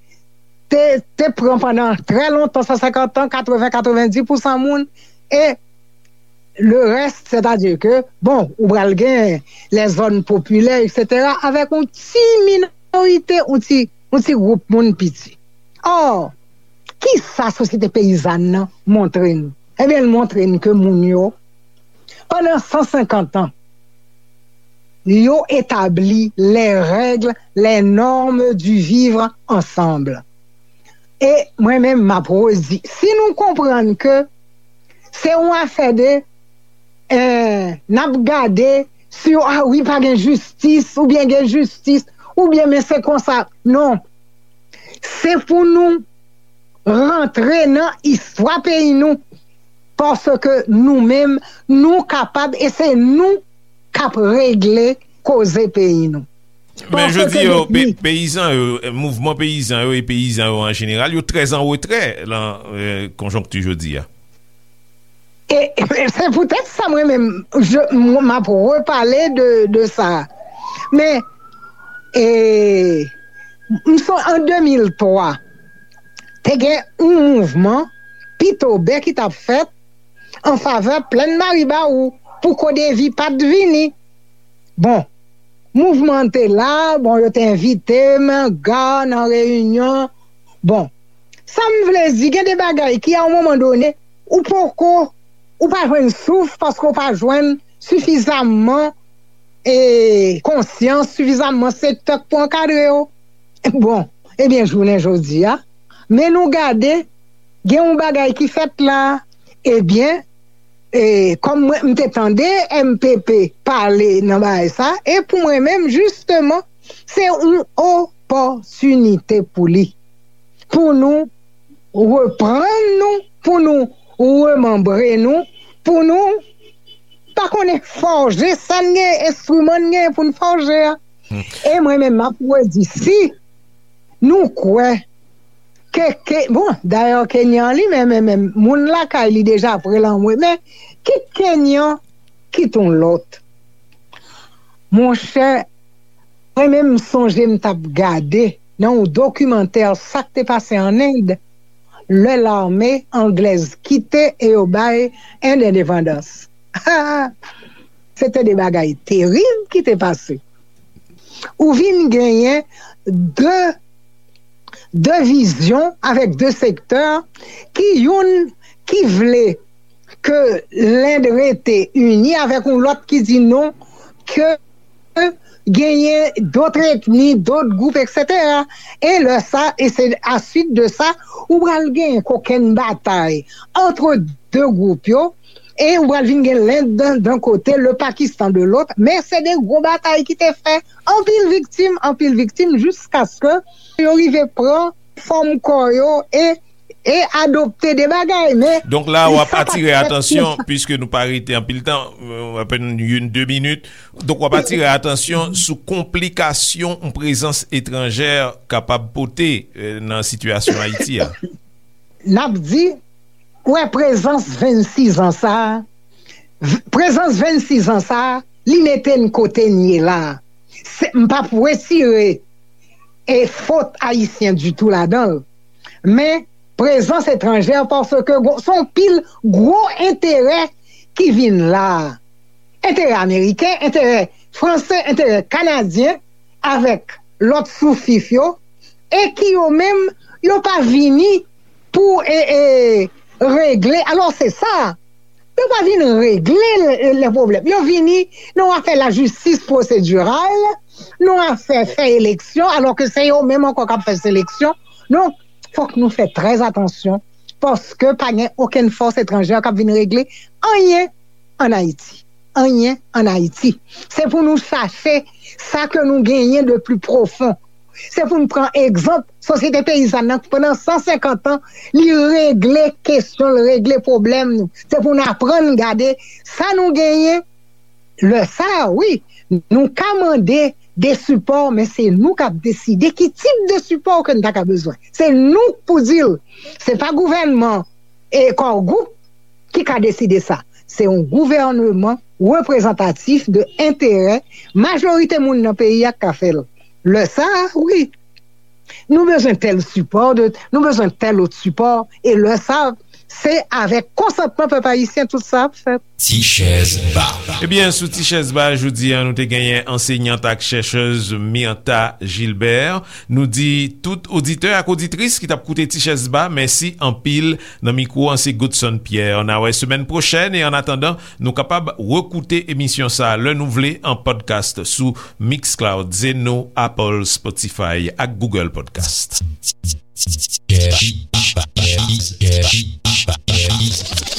te, te pran pandan trè lontan, san senkant an, katreven, katrevenndis pousan moun, e le reste, c'est-à-dire que, bon, ou pral gen les zones populaires, et cetera, avèk yon ti minorite, yon ti, yon ti gwoup moun piti. Or, kisa sosyete peyizàn nan montre n? Ebyen, l montre n ke moun yo, pandan san senkant an, yo etabli les règles, les normes du vivre ensemble. E mwen menm, m ap redi, si nou konprann ke se yon afè de, eh, n ap gade si, a wi, pa gen jistis, oubyen gen jistis, oubyen men se konsa. Non. Se pou nou rantre nan istwa peyi nou, paske nou menm, nou kapab, e se nou k ap regle koze peyi nou. Men jodi yo, pe-, peyizan yo, eh, mouvman peyizan yo e peyizan yo an jeneral, yo trè an retrè lan, eh, konjonkti jodi a. E, e se poutèt sa mwen menm, je, m, m ap repale de, de sa. Men, e, m son, an de mil twa, te gen yon mouvman Pitobe ki t ap fèt an favè Plèn Maribawou pou Kodevi pa t vini. Bon, mouvman an te la, bon, yo te envite m, Ga, nan reyinyon. Bon, sa m vle di, gen de bagay ki, a yon moman done, ou poko, ou pa jwenn souf paske ou pa jwenn sifizamman, e, konsyans, sifizamman sektè k pou ankadre yo. Bon, ebyen, jounen jodi a, men nou gade, gen yon bagay ki fèt la, ebyen, e, kòm mwen, m te tande M P P pale nan bagay sa, e pou mwen menm, jisteman, se yon opòtinite pou li, pou nou reprann nou, pou nou remanbre nou, pou nou pa konnen fòje sa n gen, enstriman n gen pou n fòje a. E mwen menm, m ap redi, si nou kwè ke, ke, bon, dayè, Kenyan li menm, men, men, moun lakay li deja pre l anmwe, men kit Kenyan, kit yon lòt. Monchè, mwen menm, m sonje m t ap gade nan yon dokimantè sa k te pase ann End, lè lame anglèz kite e yo bay End endepandans. Se te de bagay terib ki te pase. Ou vin genyen de, de vizyon avèk de sektè ki youn ki vle ke Lend rete ini avèk yon lòt ki di non, ke genyen dòt etni, dòt gwoup, etsetera. E lè sa, e se aswit de sa, ou pral genyen kokenn batay antre de gwoup yo, e ou pral vin gen Lend dan, dan kote, le Pakistan de lòt, men se de gwo batay ki te fè anpil viktim, anpil viktim, jiskaske yo rive pran fòm kò yo e, e adopte de bagay, men... Donk la, w ap atire atansyon, piske nou pa rete anpil tan, euh, apèn youn, de minit. Donk, w ap atire atansyon sou konplikasyon yon prezans etranjè kapab pote, euh, nan sitiyasyon Ayiti a. N ap di, wè, prezans vennsis an sa a, v-, prezans vennsis an sa a, li mete n kote n ye la a. Se, m p ap retire, e, fòt ayisyen ditou ladan l. Men, prezans etranjè, paske gwo, se yon pil gwo enterè ki vin la a. Enterè ameriken, enterè franse, enterè kanadyen, avèk lòt soufif yo, e ki yo menm, yo pa vini pou, e, e, regle. Alò, se sa. Yo pa vin regle le, le pwoblèm. Yo vini nan yon afè lajistis pwosediral, nan yon afè fè eleksyon, alò ke se yo menm ankò k ap fè seleksyon. Donk, fòk nou fè trè atansyon, paske pa gen okenn fòs etranjè k ap vin regle anyen ann Ayiti. Anyen ann Ayiti. Se pou nou chache sa ke nou genyen de pli pwofon. Se pou n pran egzanp sosyete peyizàn nan, pandan san senkant an, li regle kesyon, li regle pwoblèm nou. Se pou n aprann gade sa nou genyen. Lè sa a, wi, nou ka mande de sipò, men se nou k ap deside ki tip de sipò ke n ta ka bezwen. Se nou k pou di l. Se pa gouvènman e Core Group ki ka deside sa. Se yon gouvènman reprezantatif de enterè majorite moun nan peyi a k ka fè l. Lè sa a, wi, nou bezwen tèl sipò, de, nou bezwen tèl lòt sipò, e lè sa a, se avèk konsantman pèp ayisyen tout sa ap fèt. Ti chèz ba. Ebyen, sou Ti chèz ba, jodi a, nou te genyen ansenyant ak chèchèz Myrtha Gilbert. Nou di tout oditè ak oditris ki t ap koute Ti chèz ba, mèsi anpil. Nan mikwo an, se Godson Pierre. N a wè semèn pwochèn, e annatandan, nou kapab rekoute emisyon sa a lè nou vle an podcast sou Mixcloud, Zeno, Apple, Spotify ak Google Podcast.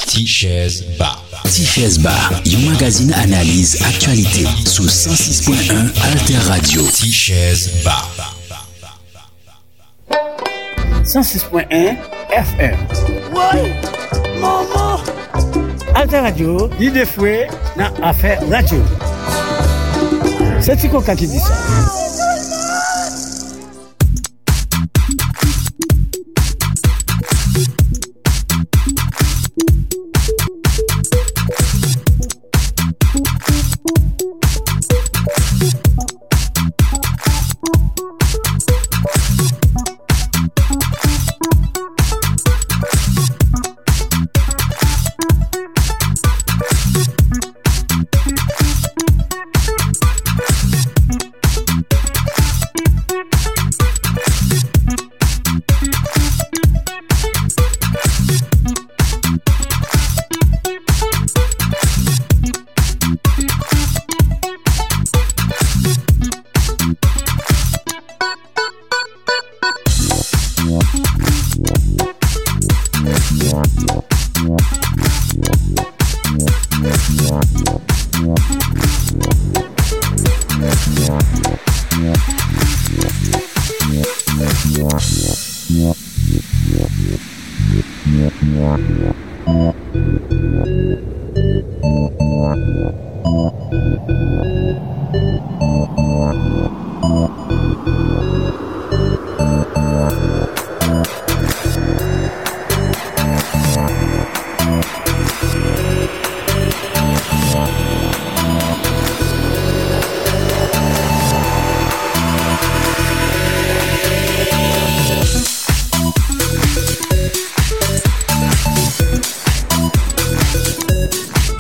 Ti chèz ba. Ti chèz ba, yon magazin analiz aktyalite sou san sis pwen en Alter Radio. Ti chèz ba. San sis pwen en F M. Woy! Manman! Alter Radio, lide fre nan afè radyo. Se Ti Koka ki di sa.